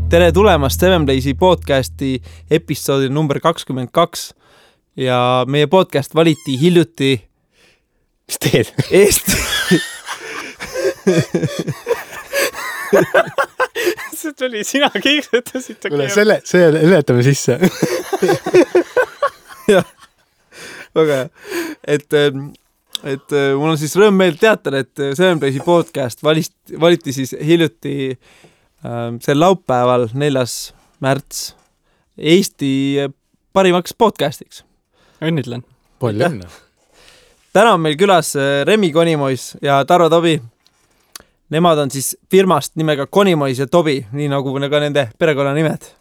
Tere tulemast Seven Blaze'i podcasti episoodi number 22 ja meie podcast valiti hiljuti Mis teed? Eesti See tuli sina kiiksetasid. Kuule, see ületame sisse. Jah, väga hea. Et mul on siis rõõm meel teatada, et Seven Blaze'i podcast valiti siis hiljuti sel laupäeval 4. märts Eesti parimaks podcastiks. Õnnitlen. Palju õnne. Täna on meil külas Remi Konimois ja Tarvo Tobi. Nemad on siis firmast nimega Konimois ja Tobi, nii nagu ka nende perekonna nimed.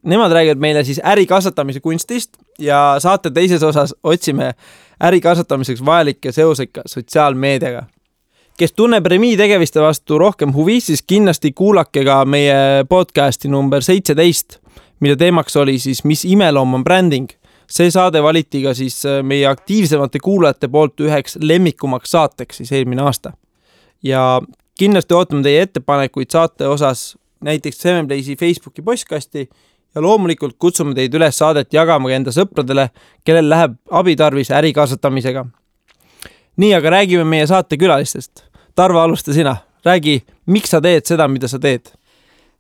Nemad räägivad meile siis äri kasvatamise kunstist ja saate teises osas otsime äri kasvatamiseks vajalikke seoseid ka sotsiaalmeediaga. Kes tunneb Remi tegeviste vastu rohkem huvi, siis kindlasti kuulake ka meie podcasti number 17, mille teemaks oli siis Mis imeloom on bränding. See saade valiti ka siis meie aktiivsemate kuulajate poolt üheks lemmikumaks saateks siis eelmine aasta. Ja kindlasti ootame teie ettepanekuid saate osas näiteks Seven Blaze'i Facebooki postkasti ja loomulikult kutsume teid üles saadet jagama enda sõpradele, kellel läheb abitarvis äri kasvatamisega. Nii, aga räägime meie saate külalistest. Tarvo, alusta sina. Räägi, miks sa teed seda, mida sa teed?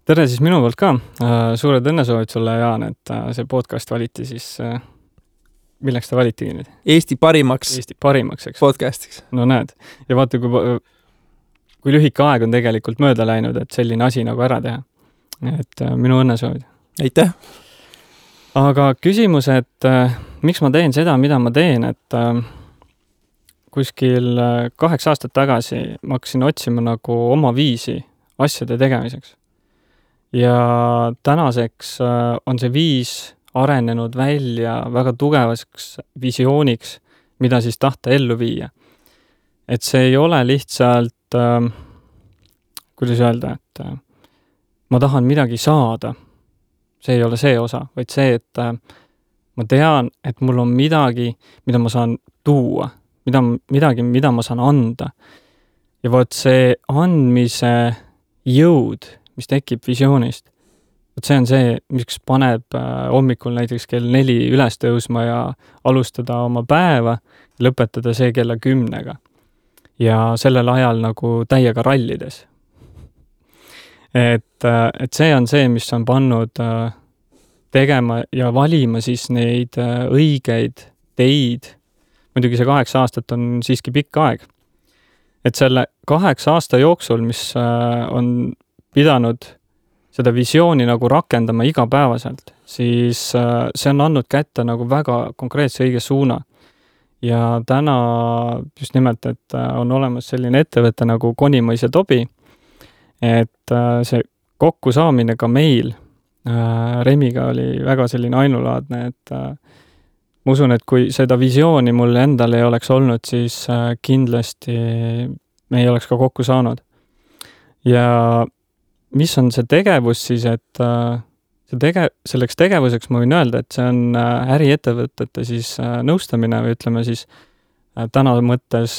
Tere siis minu poolt ka. Suured õnnesoovid sulle, Jaan, et see podcast valiti siis... Milleks ta valitigi nüüd? Eesti parimaks, eks. Podcastiks. No näed. Ja vaata, kui lühike aeg on tegelikult mööda läinud, et selline asi nagu ära teha. Et minu õnnesoovid. Aitäh! Aga küsimus, et miks ma teen seda, mida ma teen, et kuskil 8 aastat tagasi ma hakkasin otsima nagu oma viisi asjade tegemiseks. Ja tänaseks on see viis arenenud välja väga tugevaks visiooniks, mida siis tahta ellu viia. Et see ei ole lihtsalt, kuidas öelda, et ma tahan midagi saada. See ei ole see osa, vaid see, et ma tean, et mul on midagi, mida ma saan tuua, midagi, mida ma saan anda. Ja võt see andmise jõud, mis tekib visioonist, see on see, miks paneb hommikul näiteks kell 4 üles tõusma ja alustada oma päeva, lõpetada see kella 10. Ja sellel ajal nagu täiega rallides. Et see on see, mis on pannud tegema ja valima siis neid õigeid teid. Muidugi see 8 aastat on siiski pikk aeg. Et selle 8 aasta jooksul, mis on pidanud seda visiooni nagu rakendama igapäevaselt, siis see on andnud kätte nagu väga konkreetse õige suuna. Ja täna just nimelt, et on olemas selline ettevõte nagu Konimois ja Tobi, et see kokkusaamine ka meil Remiga oli väga selline ainulaadne, et ma usun, et kui seda visiooni mul endal ei oleks olnud, siis kindlasti me ei oleks ka kokku saanud. Ja mis on see tegevus siis, et selleks tegevuseks ma võin öelda, et see on äriettevõtete siis nõustamine või ütleme siis täna mõttes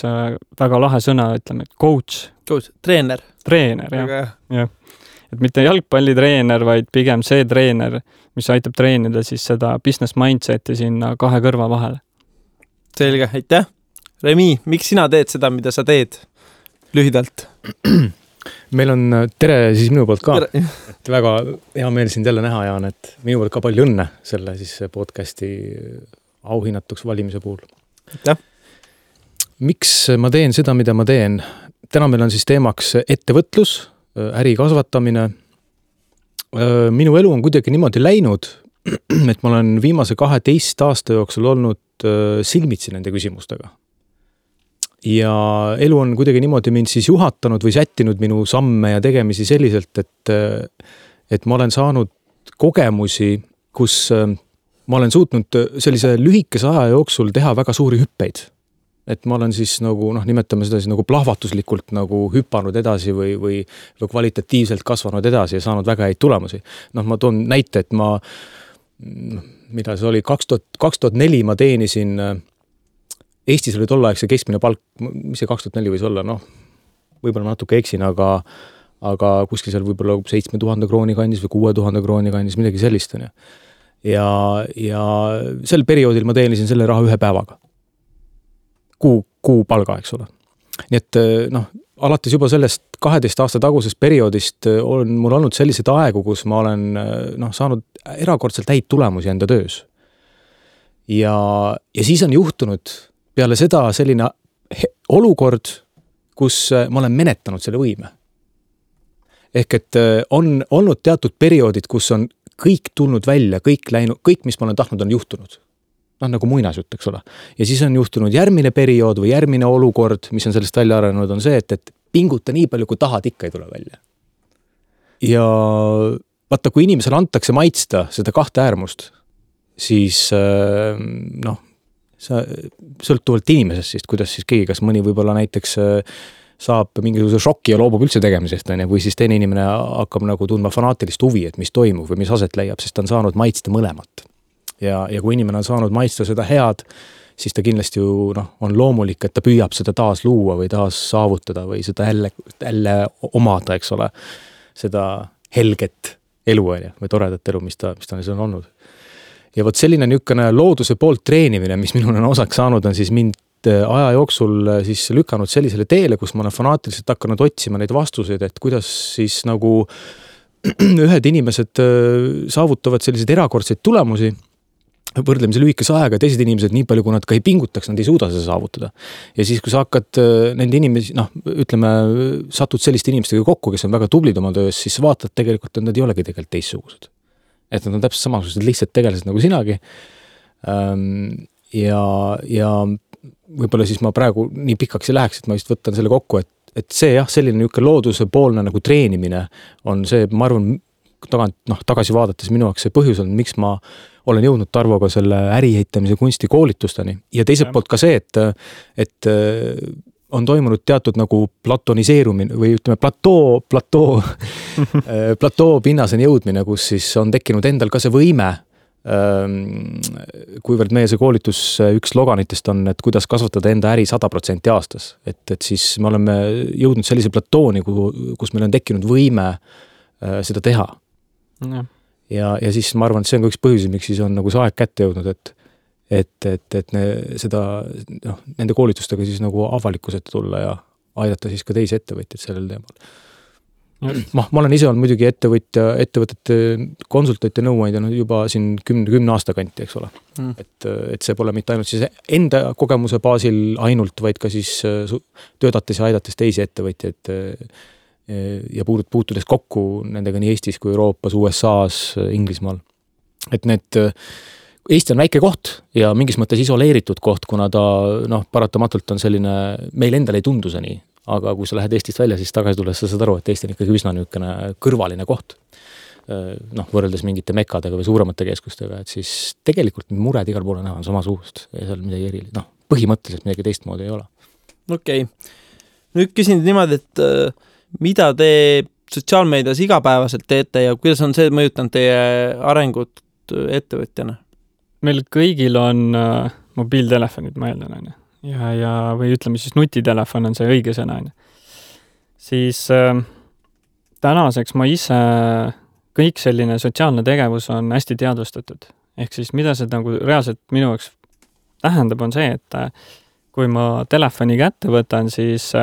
väga lahe sõna, ütleme, et coach. Treener, jah. Et mitte jalgpallitreener, vaid pigem see treener, mis aitab treenida siis seda business mindseti sinna 2 kõrva vahele. Selge, aitäh. Remi, miks sina teed seda, mida sa teed? Lühidalt. Meil on tere siis minu poolt ka. Et väga hea meel sind jälle näha, Jaan, et minu poolt ka palju õnne selle siis podcasti auhinnatuks valimise puhul. Aitäh. Miks ma teen seda, mida ma teen? Täna meil on siis teemaks ettevõtlus, äri kasvatamine. Minu elu on kuidagi niimoodi läinud, et ma olen viimase 12 aasta jooksul olnud silmitsi nende küsimustega. Ja elu on kuidagi niimoodi mind siis juhatanud või sättinud minu samme ja tegemisi selliselt, et ma olen saanud kogemusi, kus ma olen suutnud sellise lühikese aja jooksul teha väga suuri hüppeid. Et ma olen siis nagu, nimetame seda siis nagu plahvatuslikult nagu hüpanud edasi või kvalitatiivselt kasvanud edasi ja saanud väga häid tulemusi. Ma toon näite, et mida see oli, 2004 ma teenisin Eestis oli tollaegse keskmine palk, mis see 2004 võis olla, võib-olla natuke eksin, aga aga kuskil seal võib-olla 7,000 krooni kandis või 6,000 krooni kandis, midagi sellist on ju. Ja sel perioodil ma teenisin selle raha 1 päevaga. Kuu palga, eks ole. Nii et alates juba sellest 12 aasta tagusest perioodist on mul olnud sellised aegu, kus ma olen saanud erakordselt häid tulemusi enda töös. Ja siis on juhtunud peale seda selline olukord, kus ma olen menetanud selle võime. Ehk et on olnud teatud perioodid, kus on kõik tulnud välja, kõik, mis ma olen tahtnud, on juhtunud. Nagu muinasjutt, eks ole. Ja siis on juhtunud järgmine periood või järgmine olukord, mis on sellest välja arenenud, on see, et pinguta nii palju, kui tahad, ikka ei tule välja. Ja vaata, kui inimesele antakse maitsta seda 2 äärmust, siis sõltuvalt inimesest, siis kuidas siis keegi, kas mõni võib-olla näiteks saab mingisuguse šoki ja loobub üldse tegemisest, või siis teine inimene hakkab nagu tundma fanaatilist huvi, et mis toimub või mis aset leiab, sest ta on saanud maitsta mõlemat. Ja kui inimene on saanud maitsta seda head, siis ta kindlasti ju on loomulik, et ta püüab seda taas luua või taas saavutada või seda jälle omada, eks ole, seda helget elu või toredat elu, mis ta on olnud. Ja võt selline niisugune looduse poolt treenimine, mis minul on osaks saanud, on siis mind aja jooksul siis lükanud sellisele teele, kus ma olen fanaatiliselt hakanud otsima neid vastuseid, et kuidas siis nagu ühed inimesed saavutavad selliseid erakordseid tulemusi võrdlemisi lühikese aega, teised inimesed nii palju, kui nad ka ei pingutaks, nad ei suuda seda saavutada. Ja siis, kui sa hakkad nende inimesi, satud selliste inimestega kokku, kes on väga tublid oma töös, siis vaatad tegelikult, et nad ei olegi tegelikult teistsugused. Et nad on täpselt samasugused lihtsalt tegelased nagu sinagi. Ja võib-olla siis ma praegu nii pikaks ei läheks, et ma just võtan selle kokku, et see selline niisugune looduse poolne nagu treenimine on see, ma arvan, tagasi vaadates minu jaoks see põhjus on, miks ma olen jõudnud Tarvoga selle äriehitamise kunstikoolitusteni. Ja teiselt poolt ka see, et on toimunud teatud nagu platoniseerumine või ütleme platoo pinnaseni jõudmine, kus siis on tekkinud endal ka see võime, kuivõrd meie see koolitus üks sloganitest on, et kuidas kasvatada enda äri 100% aastas. Et siis me oleme jõudnud sellise platooni, kus meil on tekkinud võime seda teha. Ja siis ma arvan, et see on ka üks põhjus, miks siis on nagu see aeg kätte jõudnud, et nende koolitustega siis nagu avalikkusete tulla ja aidata siis ka teisi ettevõtjaid sellel teemal. Ma olen ise olnud muidugi ettevõtete konsultante nõuandja juba siin 10 aasta kanti, eks ole. Et see pole mitte ainult siis enda kogemuse baasil ainult, vaid ka siis töötates ja aidates teisi ettevõtjaid ja puutudes kokku nendega nii Eestis kui Euroopas, USA-s, Inglismaal. Et Eesti on väike koht ja mingis mõttes isoleeritud koht, kuna ta paratamatult on selline, meil endal ei tundu see nii, aga kui sa lähed Eestist välja, siis tagasi tulles sa saad aru, et Eesti on ikkagi üsna niisugune kõrvaline koht. Võrreldes mingite mekadega või suuremate keskustega, et siis tegelikult mured igal poole näha on samasugust ja seal midagi erilist. Põhimõtteliselt midagi teistmoodi ei ole. Okei. Nüüd küsin niimoodi, et mida te sotsiaalmeedias igapäevaselt teete ja kuidas on see mõjutanud teie arengut ettevõtjana? Meil kõigil on mobiiltelefonid, ma eeldan, ja või ütleme siis nutitelefon on see õige sõna. Siis tänaseks ma ise kõik selline sotsiaalne tegevus on hästi teadvustatud. Ehk siis mida see nagu reaalselt minu jaoks tähendab on see, et kui ma telefoni kätte võtan, siis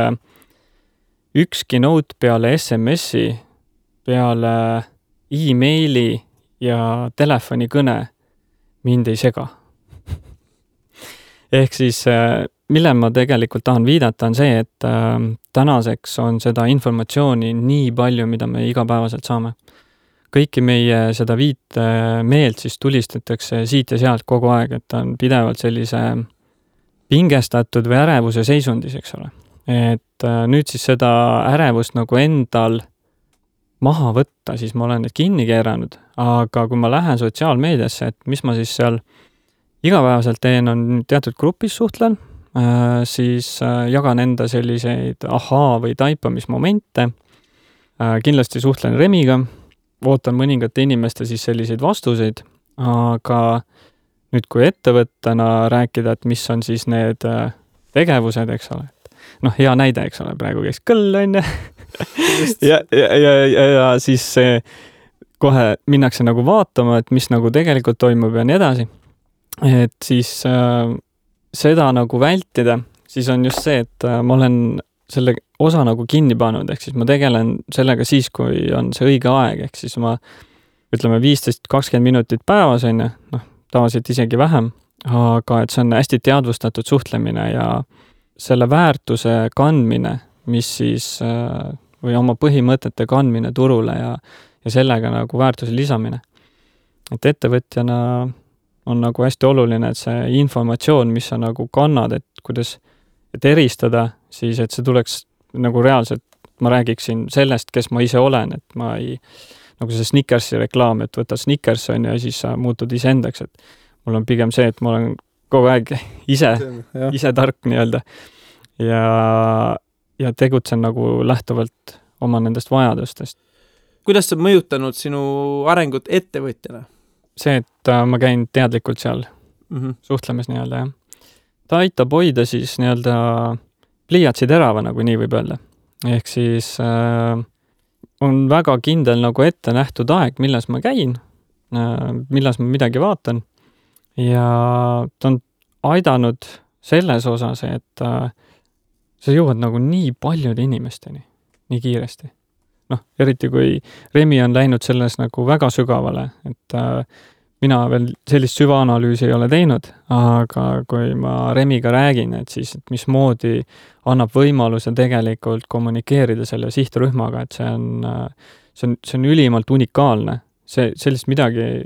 ükski note peale SMS-i, peale e-maili ja telefonikõne mind ei sega. Ehk siis, mille ma tegelikult tahan viidata, on see, et tänaseks on seda informatsiooni nii palju, mida me igapäevaselt saame. Kõiki meie seda viite meelt siis tulistatakse siit ja sealt kogu aeg, et on pidevalt sellise pingestatud või ärevuse seisundis, eks ole. Et nüüd siis seda ärevust nagu endal maha võtta, siis ma olen need kinni keeranud, aga kui ma lähen sotsiaalmeediasse, et mis ma siis seal igapäevaselt teen, on teatud grupis suhtlen, siis jagan enda selliseid või taipamismomente, kindlasti suhtlen Remiga, ootan mõningate inimeste siis selliseid vastuseid, aga nüüd kui ettevõttena rääkida, et mis on siis need tegevused, eks ole. Hea näide, eks ole, praegu käis kõll, ja siis kohe minnakse nagu vaatama, et mis nagu tegelikult toimub ja nii edasi. Et siis seda nagu vältida, siis on just see, et ma olen selle osa nagu kinni pannud, ehk siis ma tegelen sellega siis, kui on see õige aeg, ehk siis ma ütleme 15-20 minutit päevas on, tavaliselt isegi vähem, aga et see on hästi teadvustatud suhtlemine ja selle väärtuse kandmine, mis siis või oma põhimõtete kandmine turule ja sellega nagu väärtuse lisamine. Et ettevõtjana on nagu hästi oluline, et see informatsioon, mis sa nagu kannad, et kuidas et eristada, siis et see tuleks nagu reaalselt, ma räägiksin sellest, kes ma ise olen, et ma ei, nagu see Snickersi reklaam, et võtad Snickers on ja siis sa muutud iseendaks, et mul on pigem see, et ma olen kogu aeg ise tark nii-öelda ja tegutsen nagu lähtuvalt oma nendest vajadustest. Kuidas see mõjutanud sinu arengut ettevõtjana? See, et ma käin teadlikult seal suhtlemas nii-öelda, jah. Ta aitab hoida siis nii-öelda pliiatsi terava, nagu nii võib öelda. Ehk siis on väga kindel nagu ette nähtud aeg, millas ma käin, millas ma midagi vaatan ja ta on aidanud selles osas, et sa jõuad nagu nii paljude inimesteni, nii kiiresti. Eriti kui Remi on läinud selles nagu väga sügavale, et mina veel sellist süvaanalüüsi ei ole teinud, aga kui ma Remiga räägin, et siis et mismoodi annab võimaluse tegelikult kommunikeerida selle sihtrühmaga, et see on ülimalt unikaalne. Sellist midagi,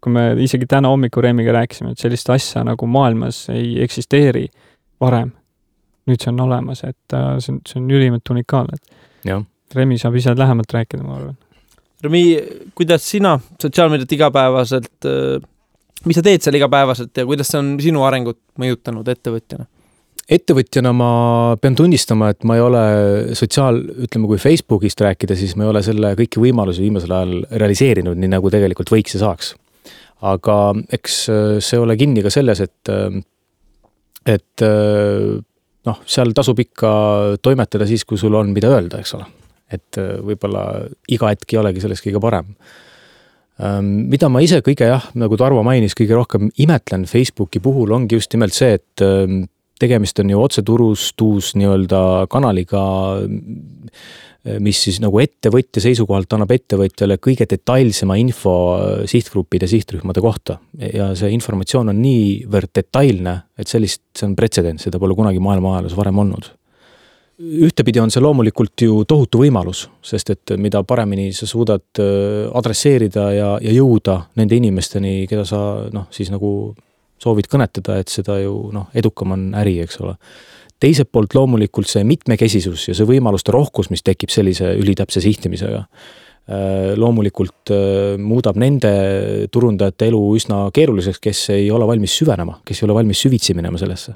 kui me isegi täna hommiku Remiga rääkisime, et sellist asja nagu maailmas ei eksisteeri varem. Nüüd see on olemas, et see on ülimalt unikaalne. Jah. Remi saab ise lähemalt rääkida, ma arvan. Remi, kuidas sina sotsiaalmeediat igapäevaselt, mis sa teed seal igapäevaselt ja kuidas see on sinu arengut mõjutanud ettevõtjana? Ettevõtjana ma pean tunnistama, et ma ei ole ütleme, kui Facebookist rääkida, siis ma ei ole selle kõiki võimalusi viimasel ajal realiseerinud, nii nagu tegelikult võiks ja saaks. Aga eks see ole kinni ka selles, et seal tasub ikka toimetada siis, kui sul on mida öelda, eks ole. Et võib-olla iga hetk ei olegi selles kõige parem. Mida ma ise kõige, nagu Tarvo mainis, kõige rohkem imetlen Facebooki puhul ongi just nimelt see, et tegemist on ju otseturustus nii-öelda kanaliga, mis siis nagu ettevõtja seisukohalt annab ettevõtjale kõige detailsema info sihtgruppide, sihtrühmade kohta. Ja see informatsioon on niivõrd detailne, et see on pretsedent, seda pole kunagi maailma ajaloos varem olnud. Ühtepidi on see loomulikult ju tohutu võimalus, sest et mida paremini sa suudad adresseerida ja jõuda nende inimesteni, keda sa siis nagu soovid kõnetada, et seda ju edukam on äri, eks ole. Teiselt poolt loomulikult see mitmekesisus ja see võimaluste rohkus, mis tekib sellise ülitäpse sihtimisega, loomulikult muudab nende turundajate elu üsna keeruliseks, kes ei ole valmis süvenema, kes ei ole valmis süvitsi minema sellesse.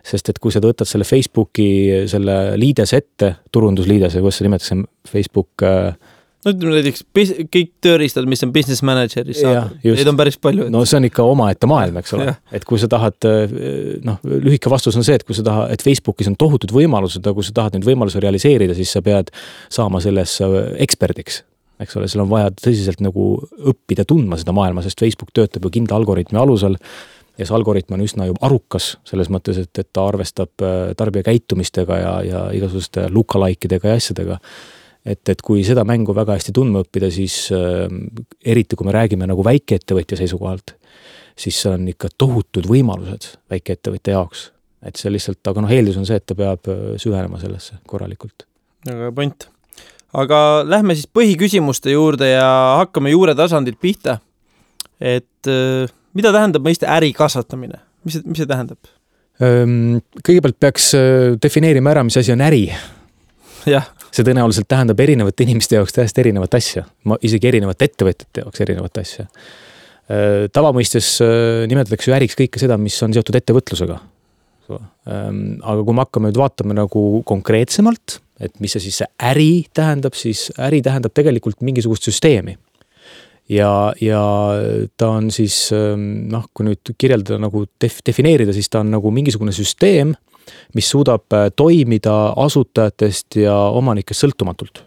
Sest et kui sa võtad selle Facebooki selle liides ette, turundusliides, kuidas sa nimetatakse Facebook... ütleme näiteks kõik tööriistad, mis on business manageris saada. Neid on päris palju. No see on ikka omaette maailm, eks ole. Et kui sa tahad, lühike vastus on see, et kui sa tahad, et Facebookis on tohutud võimalused, aga kui sa tahad neid võimalusi realiseerida, siis sa pead saama selles eksperdiks. Eks ole, seal on vaja tõsiselt nagu õppida tundma seda maailma, sest Facebook töötab ju kindla algoritmi alusel ja see algoritm on üsna ju arukas selles mõttes, et ta arvestab tarbija käitumistega ja igasuguste lookalikeidega ja asjadega. Et kui seda mängu väga hästi tundma õppida, siis eriti kui me räägime nagu väikeettevõtja seisukohalt, siis see on ikka tohutud võimalused väikeettevõtja jaoks. Et see lihtsalt, aga eeldus on see, et ta peab süvenema sellesse korralikult. Aga point. Aga lähme siis põhiküsimuste juurde ja hakkame juure tasandilt pihta. Et mida tähendab mõiste äri kasvatamine? Mis see tähendab? Kõigepealt peaks defineerima ära, mis asi on äri. Jah. See tõenäoliselt tähendab erinevate inimeste jaoks täiesti erinevat asja. Isegi erinevate ettevõtjate jaoks erinevat asja. Tavamõistes nimetatakse ju äriks kõike seda, mis on seotud ettevõtlusega. Aga kui me hakkame nüüd vaatama nagu konkreetsemalt, et mis see siis see äri tähendab, siis äri tähendab tegelikult mingisugust süsteemi. Ja ta on siis, kui nüüd kirjeldada nagu defineerida, siis ta on nagu mingisugune süsteem, mis suudab toimida asutajatest ja omanikest sõltumatult.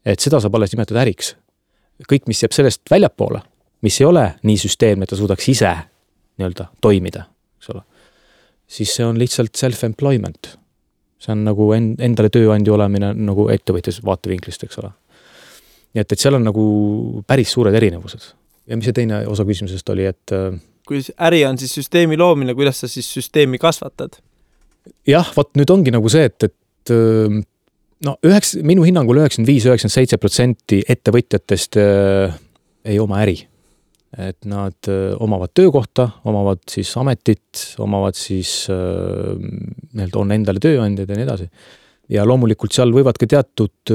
Et seda saab alles nimetada äriks. Kõik, mis jääb sellest väljapoole, mis ei ole nii süsteemne, et ta suudaks ise nii-öelda toimida, eks ole, siis see on lihtsalt self-employment. See on nagu endale tööandja olemine nagu ettevõtjase vaatevinklist, eks ole. Nii et seal on nagu päris suured erinevused. Ja mis see teine osa küsimusest oli, et kui äri on siis süsteemi loomine, kuidas sa siis süsteemi kasvatad? Jah, nüüd ongi nagu see, et minu hinnangul 95-97% ettevõtjatest ei oma äri. Et nad omavad töökohta, omavad siis ametit, omavad siis on endale tööandjad ja nii edasi. Ja loomulikult seal võivad ka teatud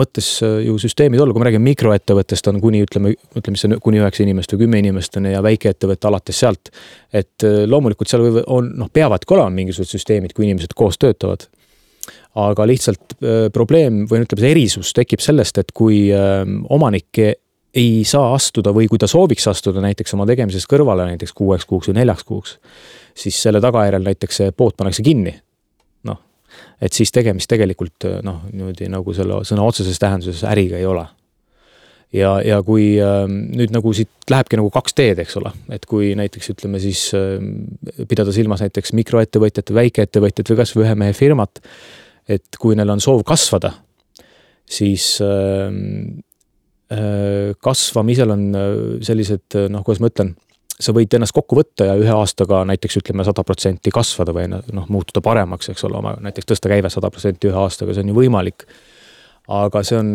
mõttes ju süsteemid olla, kui me räägime mikroettevõttest on kuni, ütleme kuni 9 inimest või 10 inimest ja väikeettevõtte alates sealt. Et loomulikult seal peavadki olema mingisugused süsteemid, kui inimesed koos töötavad. Aga lihtsalt probleem või ütleme see erisus tekib sellest, et kui omanik ei saa astuda või kui ta sooviks astuda näiteks oma tegemises kõrvale näiteks 6 kuuks või 4 kuuks, siis selle tagajärel näiteks see pood pannakse kinni. Et siis tegemist tegelikult niimoodi nagu selle sõna otseses tähenduses äriga ei ole. Ja kui nüüd nagu siit lähebki nagu 2 teed, eks ole, et kui näiteks ütleme siis pidada silmas näiteks mikroettevõtjat, väikeettevõtjat või kas või ühe mehe firmat, et kui neil on soov kasvada, siis kasvamisel on sellised, kuidas ma ütlen, sa võid ennast kokku võtta ja 1 aastaga näiteks ütleme 100% kasvada või muutuda paremaks, eks ole, näiteks tõsta käive 100% 1 aastaga, see on ju võimalik. Aga see on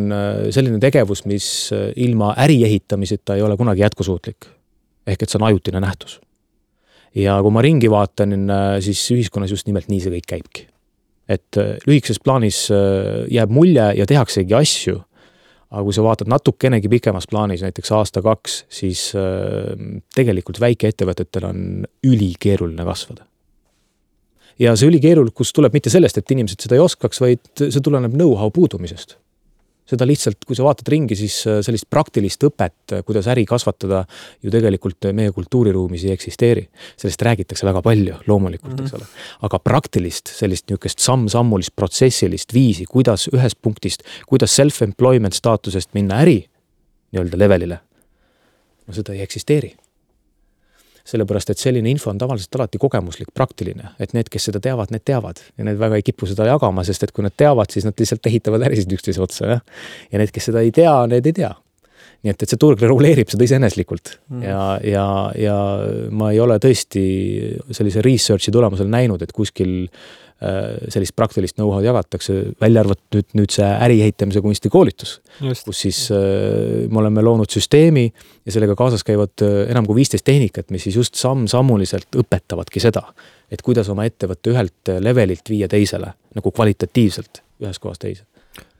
selline tegevus, mis ilma äri ehitamiseta ei ole kunagi jätkusuutlik. Ehk et see on ajutine nähtus. Ja kui ma ringi vaatan, siis ühiskonnas just nimelt nii see kõik käibki. Et lühikeses plaanis jääb mulje ja tehaksegi asju, aga kui sa vaatad natukenegi pikemas plaanis, näiteks 1-2, siis tegelikult väikeettevõtetel on ülikeeruline kasvada. Ja see ülikeerulikus tuleb mitte sellest, et inimesed seda ei oskaks, vaid see tuleneb know-how puudumisest. Seda lihtsalt, kui sa vaatad ringi, siis sellist praktilist õpet, kuidas äri kasvatada, ju tegelikult meie kultuuriruumis ei eksisteeri. Sellest räägitakse väga palju, loomulikult, eks ole. Aga praktilist, sellist niisugust samm-sammulist protsessilist viisi, kuidas ühest punktist, kuidas self-employment staatusest minna äri nii-öelda levelile, seda ei eksisteeri. Sellepärast, et selline info on tavaliselt alati kogemuslik, praktiline, et need, kes seda teavad, need teavad ja need väga ei kipu seda jagama, sest et kui nad teavad, siis nad lihtsalt ehitavad ärisid üksteise otsa ja need, kes seda ei tea, need ei tea. Nii et see turg reguleerib seda iseeneslikult ja ma ei ole tõesti sellise researchi tulemusel näinud, et kuskil sellist praktilist know-how'd jagatakse, välja arvatud nüüd see äri ehitamise kunstikoolitus, kus siis me oleme loonud süsteemi ja sellega kaasas käivad enam kui 15 tehnikat, mis siis just samm-sammuliselt õpetavadki seda, et kuidas oma ettevõtte ühelt levelilt viia teisele, nagu kvalitatiivselt ühes kohas teise.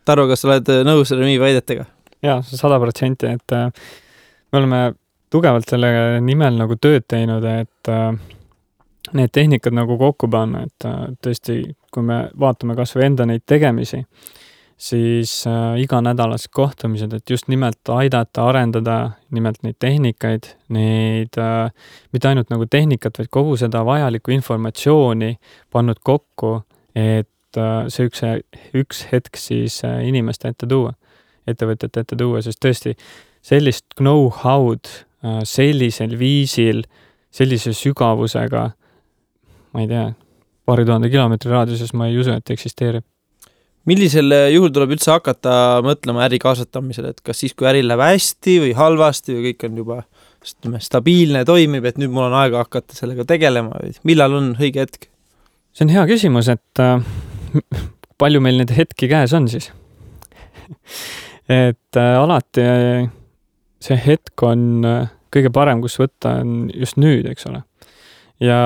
Tarvo, kas sa oled nõus Remi väidetega? Jaa, 100%, et me oleme tugevalt selle nimel nagu tööd teinud, et need tehnikad nagu kokku panna, et tõesti, kui me vaatame kas või enda neid tegemisi, siis iganädalased kohtumised, et just nimelt aidata, arendada nimelt neid tehnikaid, neid mitte ainult nagu tehnikat, vaid kogu seda vajalikku informatsiooni pannud kokku, et see üks hetk siis inimeste ette tuua, ettevõtjate ette tuua, sest tõesti sellist know-how'd sellisel viisil, sellise sügavusega, ma ei tea, 2000 kilomeetri raadiuses ma ei usu, et eksisteerib. Millisel juhul tuleb üldse hakata mõtlema äri kasvatamisele, et kas siis, kui äri läheb hästi või halvasti või kõik on juba stabiilne, toimib, et nüüd mul on aega hakata sellega tegelema või millal on õige hetk? See on hea küsimus, et palju meil need hetki käes on siis? Et alati see hetk on kõige parem, kus võtta on just nüüd, eks ole. Ja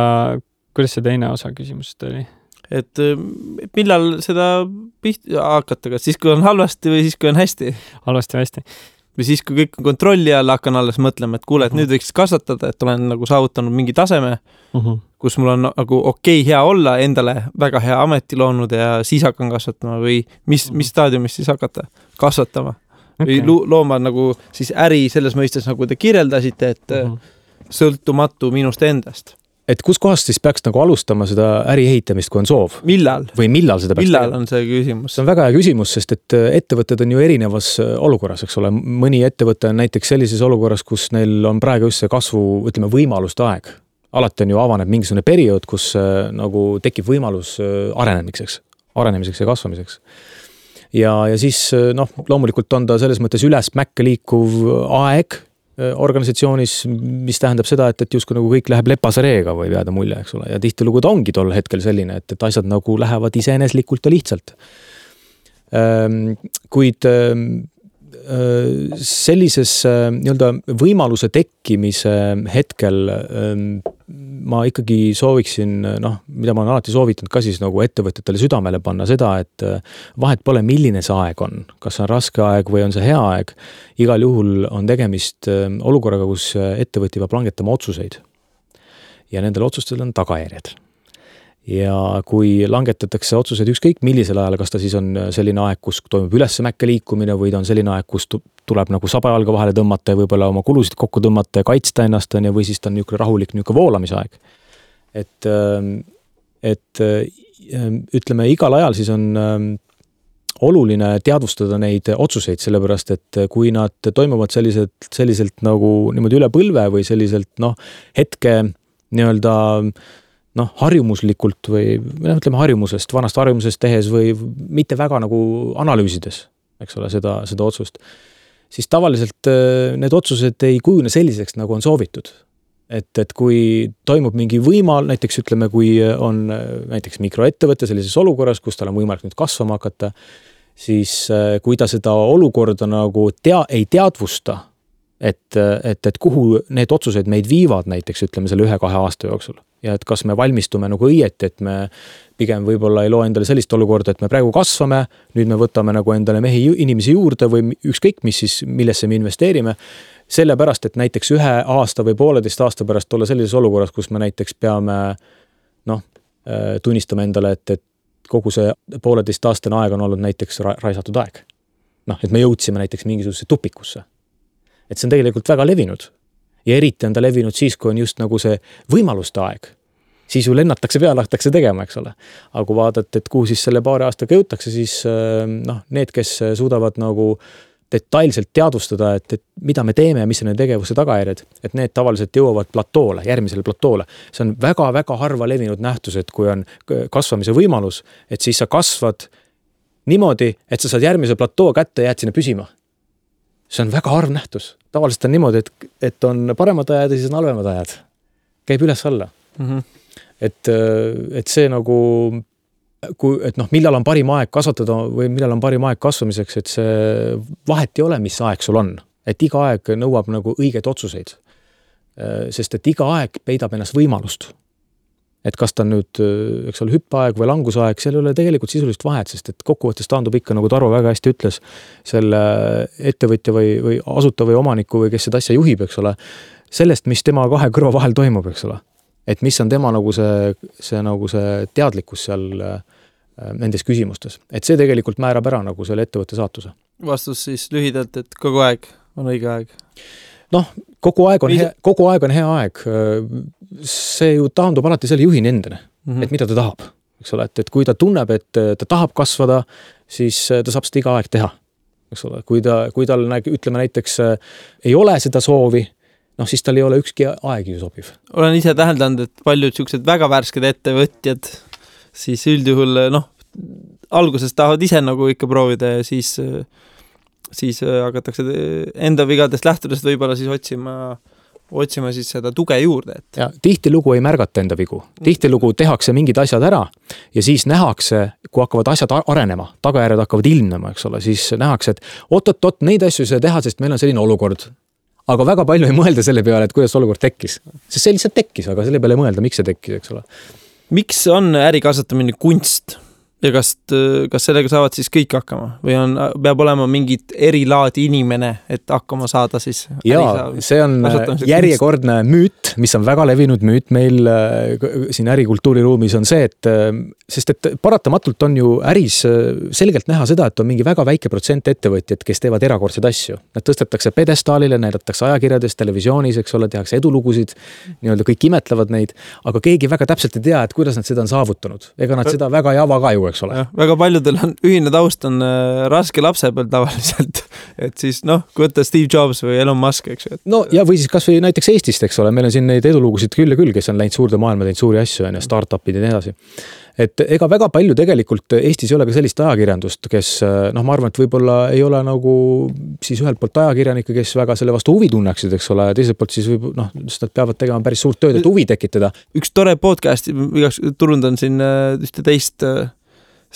kuidas see teine osa küsimusest oli? Et millal seda hakata, kas siis, kui on halvasti või siis, kui on hästi? Halvasti või hästi. Või siis, kui kõik on kontrolli all, hakkan alles mõtlema, et kuule, et nüüd võiks kasvatada, et olen nagu saavutanud mingi taseme, kus mul on nagu okei, hea olla, endale väga hea ameti loonud ja siis hakkan kasvatama või mis staadiumis siis hakata kasvatama? Või looma nagu siis äri selles mõistes, nagu te kirjeldasite, et sõltumatu minust endast. et kus kohast siis peaks nagu alustama seda äri ehitamist, kui on soov? Millal? Või millal seda peaks Millal on see küsimus? See on väga hea küsimus, sest et ettevõtted on ju erinevas olukorras, eks ole. Mõni ettevõte on näiteks sellises olukorras, kus neil on praegu just see kasvu, ütleme, võimaluste aeg. Alati on ju avaneb mingisugune periood, kus nagu tekib võimalus arenemiseks ja kasvamiseks. Ja siis loomulikult on ta selles mõttes üles mäkke liikuv aeg organisatsioonis, mis tähendab seda, et justkui nagu kõik läheb lepase reega või jääda mulje, eks ole. Ja tihtilugu ta ongi tol hetkel selline, et asjad nagu lähevad iseeneslikult ja lihtsalt. Kuid sellises nii-öelda võimaluse tekkimise hetkel ma ikkagi sooviksin, mida ma olen alati soovitanud ka siis nagu ettevõtjatele südamele panna seda, et vahet pole, milline see aeg on. Kas see on raske aeg või on see hea aeg. Igal juhul on tegemist olukorraga, kus ettevõtja peab langetama otsuseid. Ja nendel otsustel on tagajärjed. Ja kui langetatakse otsused ükskõik millisel ajal, kas ta siis on selline aeg, kus toimub üles mäkke liikumine või ta on selline aeg, kus tuleb nagu sabajalga vahele tõmmata ja võib-olla oma kulusid kokku tõmmata ja kaitsta ennast või siis ta on niisugune rahulik niisugune voolamisaeg. Et ütleme, igal ajal siis on oluline teadvustada neid otsuseid, sellepärast et kui nad toimuvad selliselt nagu niimoodi üle põlve või selliselt hetke nii-öelda harjumuslikult või ütleme vanast harjumusest tehes või mitte väga nagu analüüsides, eks ole, seda otsust, siis tavaliselt need otsused ei kujune selliseks, nagu on soovitud. Et kui toimub mingi näiteks ütleme, kui on näiteks mikroettevõte sellises olukorras, kus tal on võimalik nüüd kasvama hakata, siis kui ta seda olukorda nagu ei teadvusta, et kuhu need otsused meid viivad näiteks ütleme selle 1-2 aasta jooksul. Ja et kas me valmistume nagu õieti, et me pigem võib-olla ei loo endale sellist olukorda, et me praegu kasvame, nüüd me võtame nagu endale inimesi juurde või ükskõik mis siis, millesse me investeerime, sellepärast, et näiteks 1 aasta või 1,5 aasta pärast olla sellises olukorras, kus me näiteks peame tunnistama endale, et kogu see 1,5 aastane aeg on olnud näiteks raisatud aeg. Et me jõudsime näiteks mingisuguse tupikusse. Et see on tegelikult väga levinud. Ja eriti on ta levinud siis, kui on just nagu see võimaluste aeg. Siis ju lennatakse peale, hakatakse tegema, eks ole. Aga kui vaadata, et kuhu siis selle 2 aastaga jõutakse, siis need, kes suudavad nagu detailselt teadvustada, et mida me teeme ja mis on tegevuse tagajärjed, et need tavaliselt jõuavad platoole, järgmisele platoole. See on väga-väga harva levinud nähtus, et kui on kasvamise võimalus, et siis sa kasvad niimoodi, et sa saad järgmise platoo kätte ja jääd sinna püsima. See on väga harv nähtus. Tavaliselt on niimoodi, et on paremad ajad ja siis on halvemad ajad. Käib üles alla. Et see nagu, millal on parim aeg kasvatada või millal on parim aeg kasvamiseks, et see vahet ei ole, mis aeg sul on. Et iga aeg nõuab nagu õigeid otsuseid. Sest et iga aeg peidab ennast võimalust. Et kas ta nüüd, eks ole, hüppaeg või langusaeg, seal ei ole tegelikult sisulist vahet, sest et kokkuvõttes taandub ikka, nagu Tarvo väga hästi ütles, selle ettevõtja või asuta või omaniku või kes seda asja juhib, eks ole, sellest, mis tema 2 kõrva vahel toimub, eks ole. Et mis on tema nagu see teadlikkus seal nendes küsimustes. Et see tegelikult määrab ära nagu selle ettevõtte saatuse. Vastus siis lühidalt, et kogu aeg on õige aeg. Kogu aeg on hea aeg. See ju taandub alati selle juhini endane, et mida ta tahab. Eks ole, et kui ta tunneb, et ta tahab kasvada, siis ta saab seda iga aeg teha. Eks ole, kui tal ütleme näiteks ei ole seda soovi, siis tal ei ole ükski aeg ju sobiv. Olen ise täheldanud, et paljud sellised väga värsked ettevõtjad siis üldjuhul alguses tahavad ise nagu ikka proovida ja siis hakatakse enda vigadest lähtudest võib-olla siis otsima siis seda tuge juurde. Ja tihtilugu ei märgata enda vigu. Tihtilugu tehakse mingid asjad ära ja siis nähakse, kui hakkavad asjad arenema, tagajärjed hakkavad ilmnema, eks ole, siis nähakse, et oot, neid asju ei saa teha, sest meil on selline olukord. Aga väga palju ei mõelda selle peale, et kuidas olukord tekkis. Sest see lihtsalt tekkis, aga selle peale ei mõelda, miks see tekkis, eks ole. Miks on äri kasvatamine kunst? Ja kas sellega saavad siis kõik hakkama või peab olema mingit erilaadi inimene, et hakkama saada siis? Jaa, see on järjekordne müüt, mis on väga levinud müüt meil siin ärikultuuriruumis on see, et sest et paratamatult on ju äris selgelt näha seda, et on mingi väga väike protsent ettevõtjad, kes teevad erakordseid asju. Nad tõstetakse pedestaalile, näidatakse ajakirjades, televisioonis, eks ole, tehakse edulugusid, nii-öelda kõik imetlevad neid, aga keegi väga täpselt ei tea, et kuidas nad seda on saavutanud. Ega nad seda väga ei ava ka ju, eks ole. Ja, väga paljudel on ühine taust on raske lapse peal tavaliselt, et siis kui võtta Steve Jobs või Elon Musk, eks ju. No ja või siis kas või näiteks Eestist, eks ole, meil on siin neid edulugusid küll ja küll, kes on läinud suurde maailma, teinud suuri asju ja startupid ja nii edasi. Et ega väga palju tegelikult Eestis ei ole ka sellist ajakirjandust, kes ma arvan, et võib-olla ei ole nagu siis ühelt poolt ajakirjanikke, kes väga selle vastu huvi tunneksid, eks ole, ja teiselt poolt siis sest nad peavad tegema päris suurt tööd, et huvi tekitada. Üks tore podcast, turundan siin ühte teist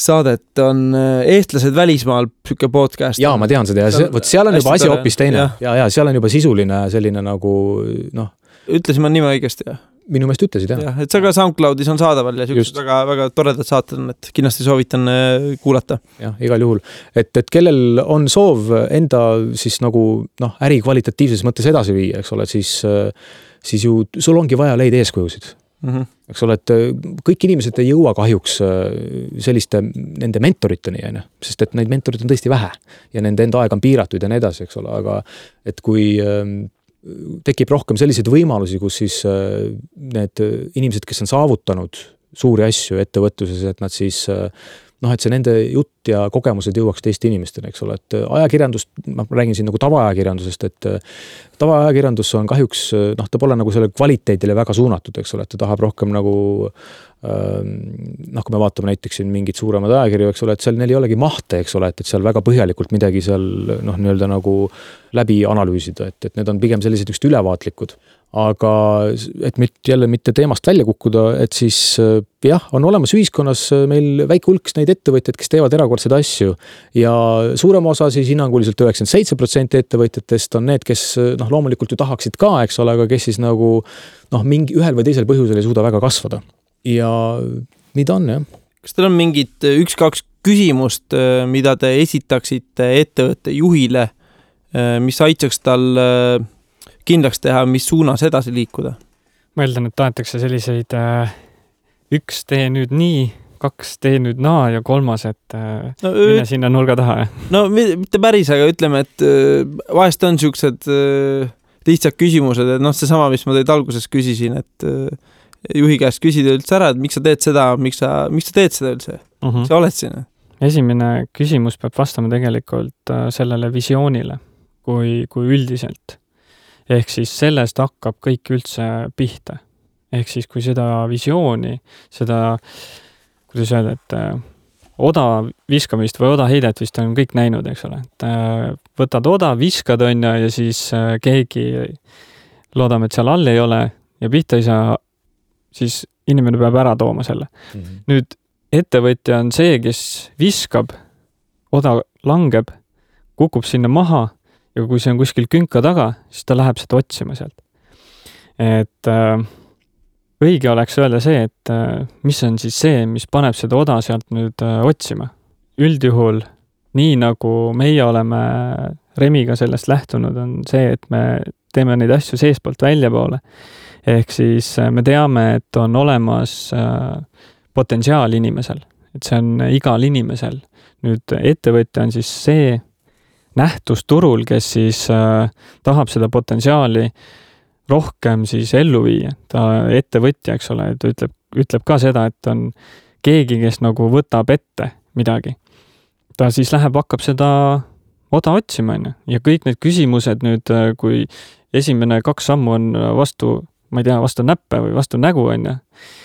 saadet on Eestlased välismaal püke podcast. Jaa, ma tean seda ja seal on juba asi hoopis teine. Ja seal on juba sisuline selline nagu Ütlesin ma nime õigesti, jah? Minu meelest ütlesid, jah. Et see ka SoundCloudis on saadaval ja sellised väga, väga toredad saated on, et kindlasti soovitan kuulata. Jah, igal juhul. Et kellel on soov enda siis nagu äri kvalitatiivses mõttes edasi viia, eks ole, siis ju sul ongi vaja leida eeskujusid. Eks ole, et kõik inimesed ei jõua kahjuks selliste nende mentoriteni, sest et neid mentorid on tõesti vähe ja nende enda aeg on piiratud ja nii edasi, eks ole, aga et kui tekib rohkem selliseid võimalusi, kus siis need inimesed, kes on saavutanud suuri asju ettevõtluses, et nad siis et see nende jutt ja kogemused jõuaks teiste inimestele, eks ole, et ajakirjandust, ma räägin siin nagu tavaajakirjandusest, et tavaajakirjandus on kahjuks, ta pole nagu selle kvaliteedile väga suunatud, eks ole, et ta tahab rohkem nagu kui me vaatame näiteks siin mingid suuremad ajakirju, eks ole, et seal neil ei olegi mahte, eks ole, et seal väga põhjalikult midagi seal nii-öelda nagu läbi analüüsida, et need on pigem sellised just ülevaatlikud. Aga et jälle mitte teemast välja kukkuda, et siis jah, on olemas ühiskonnas meil väike hulk neid ettevõtjaid, kes teevad erakordseid asju ja suurem osa siis hinnanguliselt 97% ettevõtjatest on need, kes loomulikult ju tahaksid ka, eks ole, aga kes siis nagu mingi ühel või teisel põhjusel ei suuda väga kasvada. Ja mida on, jah? Kas teil on mingid 1-2 küsimust, mida te esitaksite ettevõtte juhile, mis aitaks tal kindlaks teha, mis suunas edasi liikuda? Ma eeldan, et tahetakse selliseid 1 tee nüüd nii, 2 tee nüüd naa ja 3, et mine sinna nurga taha. No mitte päris, aga ütleme, et vahest on siuksed lihtsad küsimused, et see sama, mis ma teid alguses küsisin, et juhi käest küsida üldse ära, et miks sa teed seda, miks sa teed seda üldse? Sa oled siin? Esimene küsimus peab vastama tegelikult sellele visioonile kui üldiselt. Ehk siis sellest hakkab kõik üldse pihta. Ehk siis kui seda visiooni, seda, kuidas öelda, et oda viskamist või oda heidet vist on kõik näinud, eks ole. Et võtad oda, viskad ja siis keegi loodame, et seal all ei ole ja pihta ei saa, siis inimene peab ära tooma selle. Nüüd ettevõtja on see, kes viskab, oda langeb, kukub sinna maha ja kui see on kuskil künka taga, siis ta läheb seda otsima sealt. Et õige oleks öelda see, et mis on siis see, mis paneb seda oda sealt nüüd otsima. Üldjuhul, nii nagu meie oleme Remiga sellest lähtunud, on see, et me teeme neid asju seespoolt välja poole. Ehk siis me teame, et on olemas potentsiaal inimesel, et see on igal inimesel. Nüüd ettevõtja on siis see nähtus turul, kes siis tahab seda potentsiaali rohkem siis ellu viia. Ta ettevõtja, eks ole, ta ütleb ka seda, et on keegi, kes nagu võtab ette midagi. Ta siis hakkab seda oda otsima, ja kõik need küsimused nüüd, kui esimene 2 sammu on vastu näppe või vastu nägu,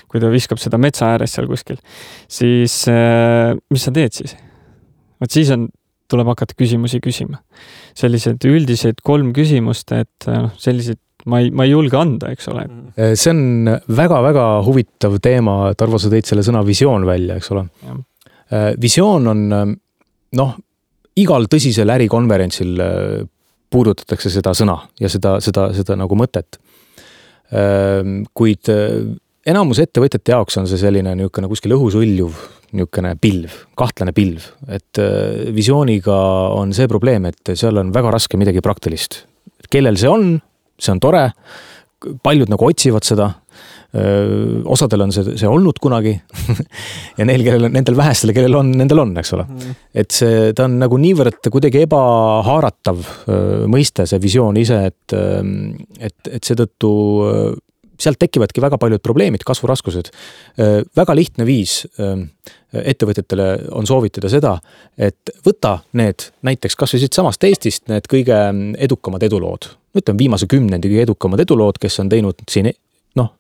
kui ta viskab seda metsa ääres seal kuskil, siis mis sa teed siis? Võt siis tuleb hakata küsimusi küsima. Sellised üldised 3 küsimust, et sellised ma ei julge anda, eks ole. See on väga-väga huvitav teema, Tarvo, sa tõid selle sõna visioon välja, eks ole. Visioon on, igal tõsisel ärikonverentsil puudutatakse seda sõna ja seda nagu mõtet. Kuid enamus ettevõtjate jaoks on see selline niisugune kuskil õhus õljuv niisugune pilv, kahtlane pilv, et visiooniga on see probleem, et seal on väga raske midagi praktilist. Kellel see on tore, paljud nagu otsivad seda, osadel on see olnud kunagi ja nendel vähestel, kellel on, nendel on, eks ole. Et ta on nagu niivõrd kuidagi ebahaaratav mõiste, see visioon ise, et seetõttu sealt tekivadki väga paljud probleemid, kasvuraskused. Väga lihtne viis ettevõtetele on soovitada seda, et võta need näiteks kas või siit samast Eestist need kõige edukamad edulood. Ütleme viimase 10 kõige edukamad edulood, kes on teinud siin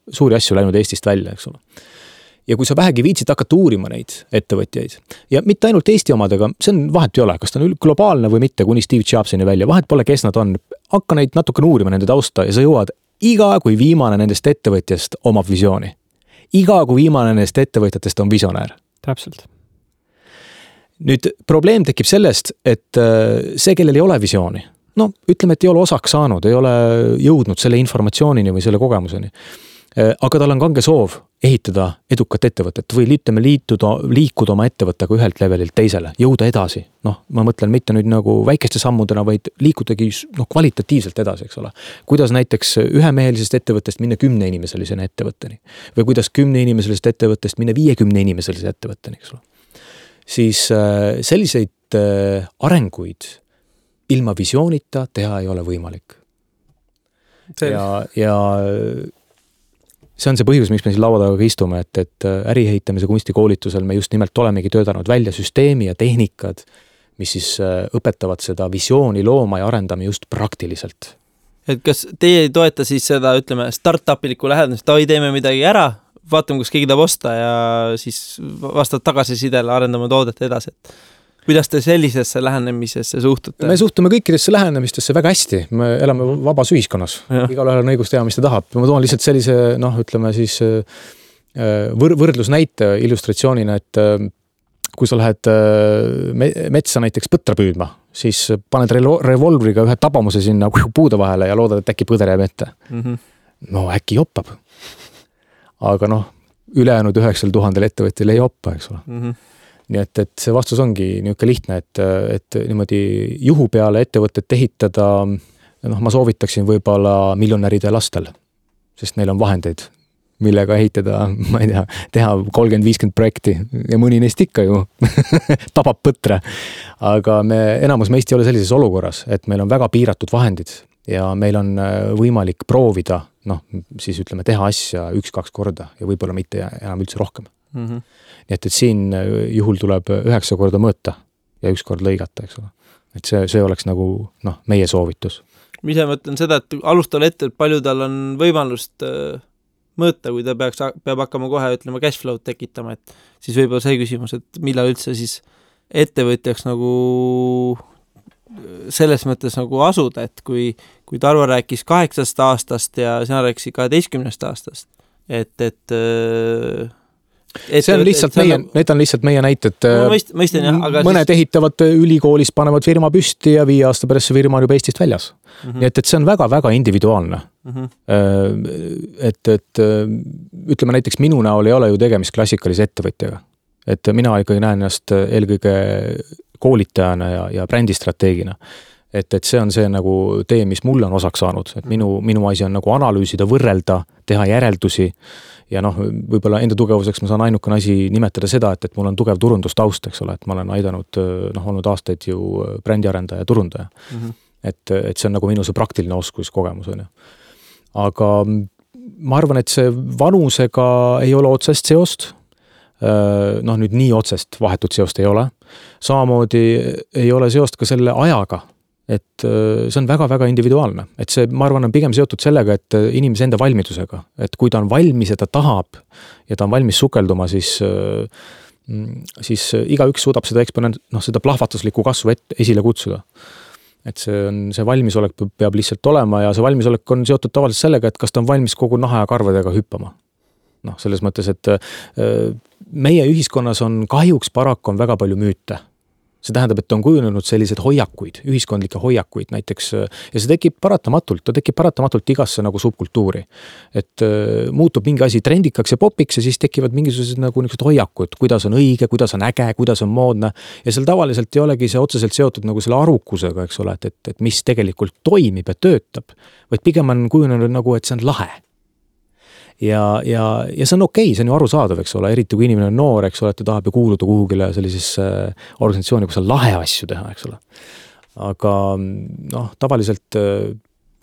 suuri asju läinud Eestist välja, eks ole. Ja kui sa vähegi viitsid hakata uurima neid ettevõtjaid ja mitte ainult Eesti omadega, see on vahet ei ole, kas ta on globaalne või mitte, kuni Steve Jobsini välja, vahet pole, kes nad on, hakka neid natukene uurima nende tausta ja sa jõuad iga kui viimane nendest ettevõtjast omab visiooni. Iga kui viimane nendest ettevõtjatest on visionäär. Täpselt. Nüüd probleem tekib sellest, et see, kellel ei ole visiooni, ütleme, et ei ole osaks saanud, ei ole jõudnud selle informatsioonini või selle kogemuseni. Aga tal on kange soov ehitada edukat ettevõtet või liikuda oma ettevõttega ühelt levelilt teisele, jõuda edasi. Ma mõtlen mitte nüüd nagu väikeste sammudena, vaid liikudagi kvalitatiivselt edasi, eks ole. Kuidas näiteks ühemehelisest ettevõttest minna 10 inimeselisena ettevõtteni või kuidas 10 inimeselisest ettevõttest minna 50 inimeselise ettevõtteni, eks ole. Siis selliseid arenguid ilma visioonita teha ei ole võimalik. Ja see on see põhjus, miks me siin laua taga istume, et äriehitamise kunstikoolitusel me just nimelt olemegi töötanud välja süsteemi ja tehnikad, mis siis õpetavad seda visiooni looma ja arendama just praktiliselt. Et kas teie ei toeta siis seda, ütleme, startupiliku lähedamist, teeme midagi ära, vaatame, kus keegi tahab osta ja siis vastavad tagasisidele arendame toodet edasi, et kuidas te sellisesse lähenemisesse suhtute? Me suhtume kõikidesse lähenemistesse väga hästi. Me elame vabas ühiskonnas. Igalühel on õigus teha, mis ta tahab. Ma toon lihtsalt sellise, ütleme siis võrdlusnäite illustratsioonina, et kui sa lähed metsa näiteks põtra püüdma, siis paned revolvriga ühe tabamuse sinna puude vahele ja loodad, et äkki põder jääb ette. No äkki joppab. Aga ülejäänud 9000 ettevõttel ei joppa, eks ole. Nii et see vastus ongi niisugune lihtne, et niimoodi juhu peale ettevõtet ehitada, ma soovitaksin võib-olla miljonäride lastel, sest neil on vahendeid, millega ehitada, ma ei tea, teha 30-50 projekti ja mõni neist ikka ju tabab põtre. Aga enamus meist ei ole sellises olukorras, et meil on väga piiratud vahendid ja meil on võimalik proovida, siis ütleme, teha asja 1-2 korda ja võib-olla mitte enam üldse rohkem. Nii et siin juhul tuleb 9 korda mõõta ja 1 kord lõigata, eks ole. Et see oleks nagu meie soovitus. Mis ma mõtlen seda, et alustal ette, et palju tal on võimalust mõõta, kui ta peab hakkama kohe, ütlema, cashflow tekitama, et siis võib-olla see küsimus, et millal üldse siis ettevõtjaks nagu selles mõttes nagu asuda, et kui Tarvo rääkis 8 aastast ja sina rääkisid 12 aastast, et see on lihtsalt need on lihtsalt meie näited. Mõistan, jah, aga mõned ehitavad ülikoolis, panevad firma püsti ja 5 aasta pärast see firma on juba Eestist väljas. Nii et see on väga-väga individuaalne. Et ütleme näiteks minu näol ei ole ju tegemist klassikalise ettevõtjaga. Et mina ikkagi näen ennast eelkõige koolitajana ja brändistrateegina. Et see on see nagu tee, mis mulle on osaks saanud. Et minu asi on nagu analüüsida, võrrelda, teha järeldusi ja võib-olla enda tugevuseks ma saan ainukene asi nimetada seda, et mul on tugev turundustaust, eks ole, et ma olen aidanud, olnud aastaid ju brändiarendaja ja turundaja. Et see on nagu minu see praktiline oskus, kogemus on. Aga ma arvan, et see vanusega ei ole otsest seost. Nüüd nii otsest vahetut seost ei ole. Samamoodi ei ole seost ka selle ajaga. Et see on väga-väga individuaalne. Et see, ma arvan, on pigem seotud sellega, et inimese enda valmidusega. Et kui ta on valmis ja ta tahab ja ta on valmis sukelduma, siis igaüks suudab seda seda plahvatuslikku kasvu esile kutsuda. Et see valmisolek peab lihtsalt olema ja see valmisolek on seotud tavaliselt sellega, et kas ta on valmis kogu naha ja karvadega hüppama. Selles mõttes, et meie ühiskonnas on kahjuks paraku on väga palju müüte See tähendab, et on kujunenud sellised hoiakuid, ühiskondlikke hoiakuid näiteks ja see tekib paratamatult igasse nagu subkultuuri. Et muutub mingi asi trendikaks ja popiks ja siis tekivad mingisugused nagu niisugused hoiakud, kuidas on õige, kuidas on äge, kuidas on moodne ja seal tavaliselt ei olegi see otseselt seotud nagu selle arukusega, eks ole, et mis tegelikult toimib ja töötab, vaid pigem on kujunenud nagu, et see on lahe. Ja see on okei, see on ju arusaadav, eks ole, eriti kui inimene on noor, eks ole, et ta tahab ju kuuluda kuhugile sellisesse organisatsiooni, kus on lahe asju teha, eks ole. Aga tavaliselt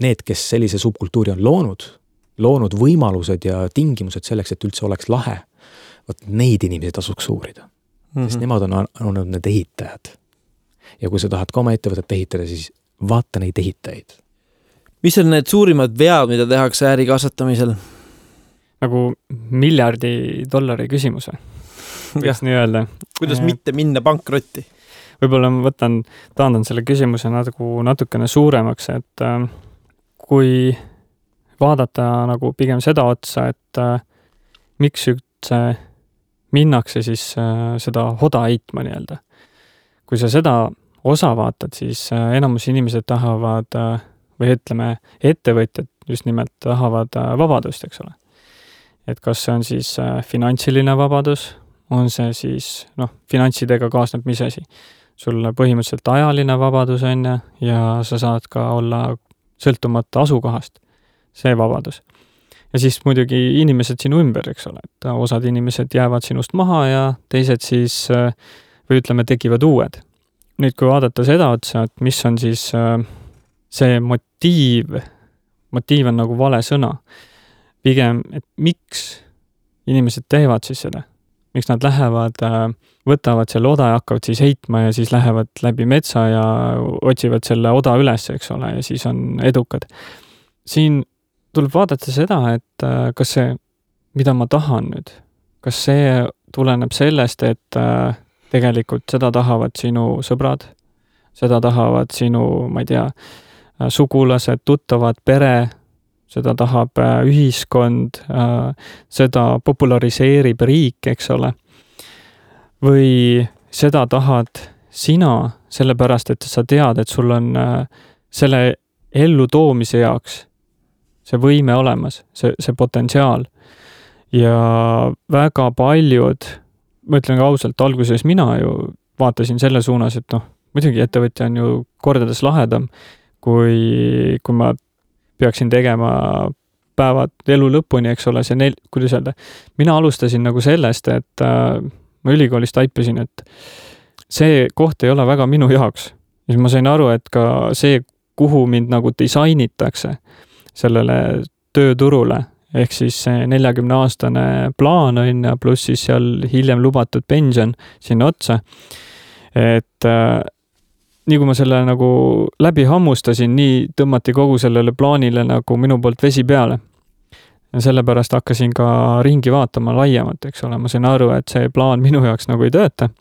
need, kes sellise subkultuuri on loonud võimalused ja tingimused selleks, et üldse oleks lahe, neid inimesi tasuks uurida. Sest nemad on need ehitajad. Ja kui sa tahad ka oma ettevõtet ehitada, siis vaata neid ehitajaid. Mis on need suurimad vead, mida tehakse äri kasvatamisel? Nagu $1 miljard küsimus või? Võiks nii öelda. Kuidas mitte minna pankrotti? Võib-olla ma taandan selle küsimuse natukene suuremaks, et kui vaadata nagu pigem seda otsa, et miks üldse minnakse siis seda hoda heitma nii-öelda. Kui sa seda osa vaatad, siis enamus inimesed tahavad, või ütleme, ettevõtjad just nimelt tahavad vabadust, eks ole. Et kas see on siis finantsiline vabadus, on see siis, finantsidega kaasneb mis asi. Sul põhimõtteliselt ajaline vabadus on ja sa saad ka olla sõltumata asukohast. See vabadus. Ja siis muidugi inimesed sinu ümber, eks ole. Et osad inimesed jäävad sinust maha ja teised siis, või ütleme, tekivad uued. Nüüd, kui vaadata seda otsa, et mis on siis see motiiv on nagu vale sõna. Pigem, et miks inimesed teevad siis seda? Miks nad lähevad, võtavad selle oda ja hakkavad siis heitma ja siis lähevad läbi metsa ja otsivad selle oda üles, eks ole, ja siis on edukad. Siin tuleb vaadata seda, et kas see, mida ma tahan nüüd, kas see tuleneb sellest, et tegelikult seda tahavad sinu sõbrad, seda tahavad sinu, ma ei tea, sugulased, tuttavad, pere, seda tahab ühiskond, seda populariseerib riik, eks ole. Või seda tahad sina, sellepärast, et sa tead, et sul on selle ellu toomise jaoks see võime olemas, see potentsiaal. Ja väga paljud, ma ütlen ka ausalt, alguses mina ju vaatasin selle suunas, et muidugi ettevõtja on ju kordades lahedam, kui ma peaksin tegema päevad elu lõpuni, eks ole, kuidas öelda. Mina alustasin nagu sellest, et ma ülikoolis taipasin, et see koht ei ole väga minu jaoks. Ja ma sain aru, et ka see, kuhu mind nagu disainitakse sellele tööturule, ehk siis see 40-aastane plaan on ja pluss siis seal hiljem lubatud pension sinna otsa. Et nii kui ma selle nagu läbi hammustasin, nii tõmmati kogu sellele plaanile nagu minu poolt vesi peale. Ja sellepärast hakkasin ka ringi vaatama laiemalt, eks ole. Ma sain aru, et see plaan minu jaoks nagu ei tööta.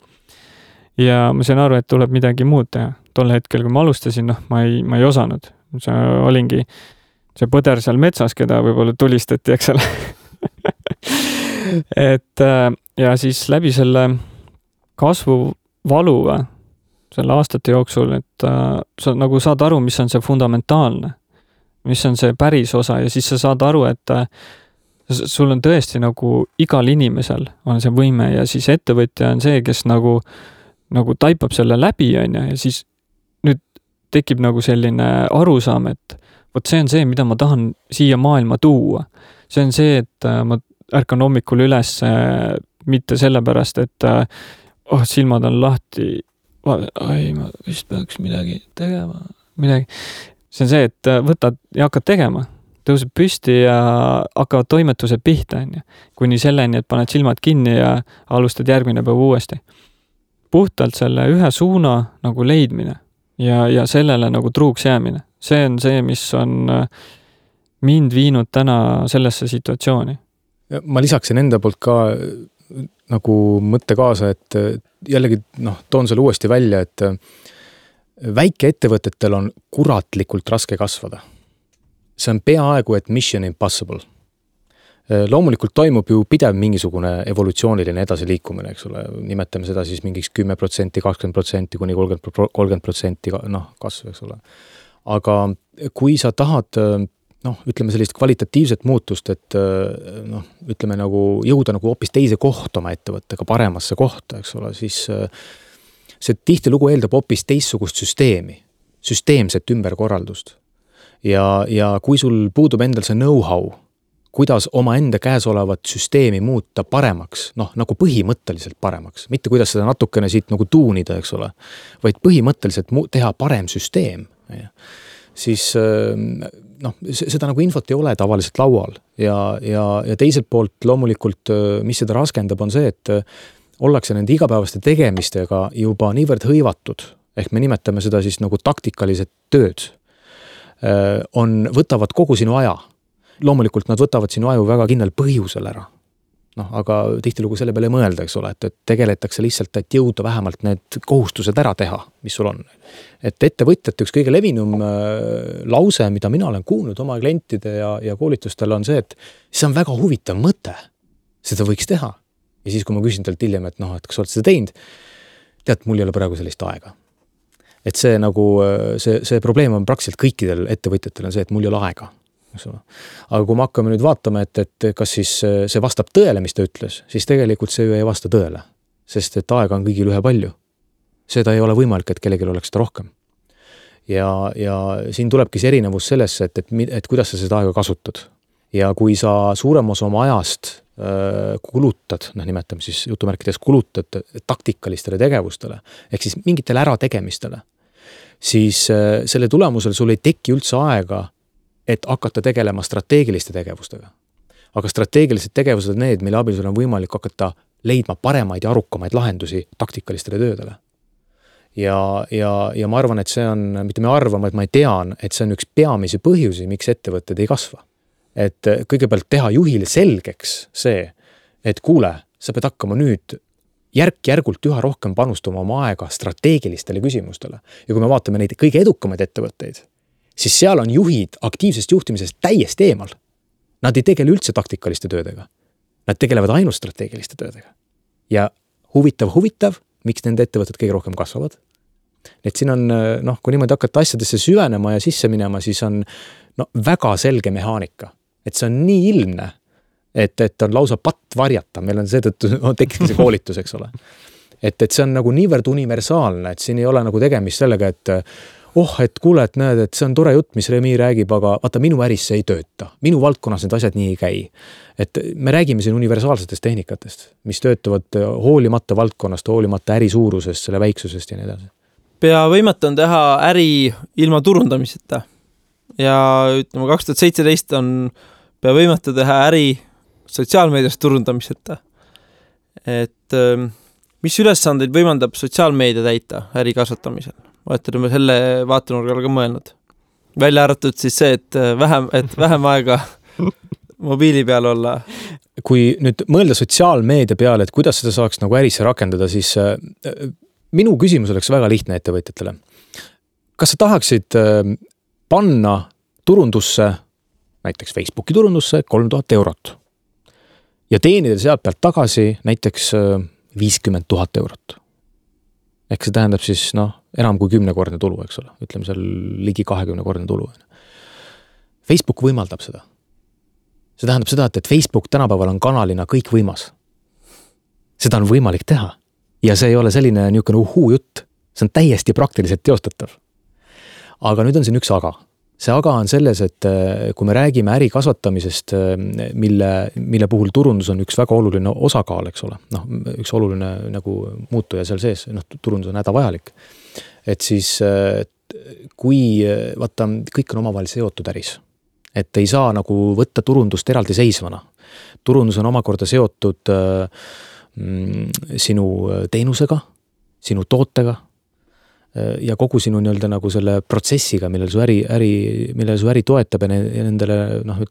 Ja ma sain aru, et tuleb midagi muud teha. Tol hetkel, kui ma alustasin, ma ei osanud. See olingi see põder seal metsas, keda võib-olla tulistati, eks ole. Et ja siis läbi selle kasvu valuva selle aastate jooksul, et sa nagu saad aru, mis on see fundamentaalne, mis on see päris osa ja siis sa saad aru, et sul on tõesti nagu igal inimesel on see võime ja siis ettevõtja on see, kes nagu taipab selle läbi on ja siis nüüd tekib nagu selline arusaam, et vot see on see, mida ma tahan siia maailma tuua. See on see, et ma ärkan hommikul üles mitte sellepärast, et silmad on lahti, ma vist peaks midagi tegema. See on see, et võtad ja hakkad tegema. Tõuseb püsti ja hakkavad toimetused pihta. Kuni selleni, et paned silmad kinni ja alustad järgmine päev uuesti. Puhtalt selle ühe suuna nagu leidmine ja sellele nagu truuks jäämine. See on see, mis on mind viinud täna sellesse situatsiooni. Ma lisaksin enda poolt ka nagu mõtte kaasa, et jällegi toon selle uuesti välja, et väikeettevõtetel on kuratlikult raske kasvada. See on peaaegu, et mission impossible. Loomulikult toimub ju pidev mingisugune evolutsiooniline edasiliikumine, eks ole, nimetame seda siis mingiks 10%, 20% kuni 30% kasv, eks ole. Aga kui sa tahad, ütleme sellist kvalitatiivset muutust, et ütleme nagu jõuda nagu hoopis teise kohta oma ettevõttega, paremasse kohta, eks ole, siis see tihtilugu eeldab hoopis teistsugust süsteemset ümberkorraldust. Ja kui sul puudub endal see know-how, kuidas oma enda käes olevat süsteemi muuta paremaks, nagu põhimõtteliselt paremaks, mitte kuidas seda natukene siit nagu tuunida, eks ole, vaid põhimõtteliselt teha parem süsteem, siis seda nagu infot ei ole tavaliselt laual ja teiselt poolt loomulikult, mis seda raskendab, on see, et ollakse nende igapäevaste tegemistega juba niivõrd hõivatud, ehk me nimetame seda siis nagu taktikalised tööd, võtavad kogu sinu aja. Loomulikult nad võtavad sinu aju väga kindlal põhjusel ära. Aga tihtilugu selle peale mõelda, eks ole, et tegeletakse lihtsalt, et jõuda vähemalt need kohustused ära teha, mis sul on. Et ettevõtjate üks kõige levinum lause, mida mina olen kuulnud oma klientide ja koolitustel on see, et see on väga huvitav mõte. Seda võiks teha. Ja siis, kui ma küsin talt hiljem, et kas oled seda teinud, tead, mul ei ole praegu sellist aega. Et see nagu, see probleem on praktiliselt kõikidel ettevõtjatel on see, et mul ei ole aega. Aga kui me hakkame nüüd vaatama, et kas siis see vastab tõele, mis ta ütles, siis tegelikult see ju ei vasta tõele, sest et aega on kõigil ühe palju. Seda ei ole võimalik, et kellelgi oleks seda rohkem. Ja siin tulebki see erinevus sellesse, et kuidas sa seda aega kasutad. Ja kui sa suurem osa oma ajast kulutad, nimetame siis jutumärkides kulutad taktikalistele tegevustele, ehk siis mingitele ärategemistele, siis selle tulemusel sul ei teki üldse aega, et hakata tegelema strateegiliste tegevustega. Aga strateegilised tegevused on need, mille abil sul on võimalik hakata leidma paremaid ja arukamaid lahendusi taktikalistele töödele. Ja ma arvan, et see on, mitte me arvame, et ma tean, et see on üks peamisi põhjusi, miks ettevõtted ei kasva. Et kõigepealt teha juhile selgeks see, et kuule, sa pead hakkama nüüd järk-järgult üha rohkem panustama oma aega strateegilistele küsimustele. Ja kui me vaatame neid kõige edukamaid ettevõtteid, siis seal on juhid aktiivsest juhtimisest täiesti eemal. Nad ei tegele üldse taktikaliste töödega. Nad tegelevad ainult strateegiliste töödega. Ja huvitav, miks nende ettevõtted kõige rohkem kasvavad. Et siin on, kui niimoodi hakata asjadesse süvenema ja sisse minema, siis on väga selge mehaanika. Et see on nii ilmne, et on lausa patt varjata. Meil on seetõttu tekkiski see koolitus, eks ole. Et see on nagu niivõrd universaalne, et siin ei ole nagu tegemist sellega, et et kuule, et näed, et see on tore jutt, mis Remi räägib, aga vaata, minu äris see ei tööta. Minu valdkonnas need asjad nii ei käi. Et me räägime siin universaalsetest tehnikatest, mis töötavad hoolimata valdkonnast, hoolimata äri suurusest, selle väiksusest ja nii edasi. Pea võimatu on teha äri ilma turundamiseta. Ja ütleme, 2017 on pea võimatu teha äri sotsiaalmeedias turundamiseta. Et mis ülesandeid võimaldab sotsiaalmeedia täita äri kasvatamisel? Oleme selle vaatenurgal ka mõelnud. Välja arvatud siis see, et vähem aega mobiili peal olla. Kui nüüd mõelda sotsiaalmeedia peale, et kuidas seda saaks nagu ärisse rakendada, siis minu küsimus oleks väga lihtne ettevõtjatele. Kas sa tahaksid panna turundusse, näiteks Facebooki turundusse 3000 eurot ja teenida sealt pealt tagasi näiteks 50 000 eurot? Ehk see tähendab siis enam kui 10-kordne tulu, eks ole. Ütleme seal ligi 20-kordne tulu. Facebook võimaldab seda. See tähendab seda, et Facebook tänapäeval on kanalina kõik võimas. Seda on võimalik teha. Ja see ei ole selline niisugune jutt. See on täiesti praktiliselt teostatav. Aga nüüd on siin üks aga. See aga on selles, et kui me räägime äri kasvatamisest, mille puhul turundus on üks väga oluline osakaal, eks ole. Üks oluline nagu muutuja seal sees, turundus on hädavajalik. Et siis, kui vaata, kõik on omavahel seotud äris, et ei saa nagu võtta turundust eraldi seisvana. Turundus on omakorda seotud sinu teenusega, sinu tootega, ja kogu sinu nagu selle protsessiga, millel su äri toetab ja nendele,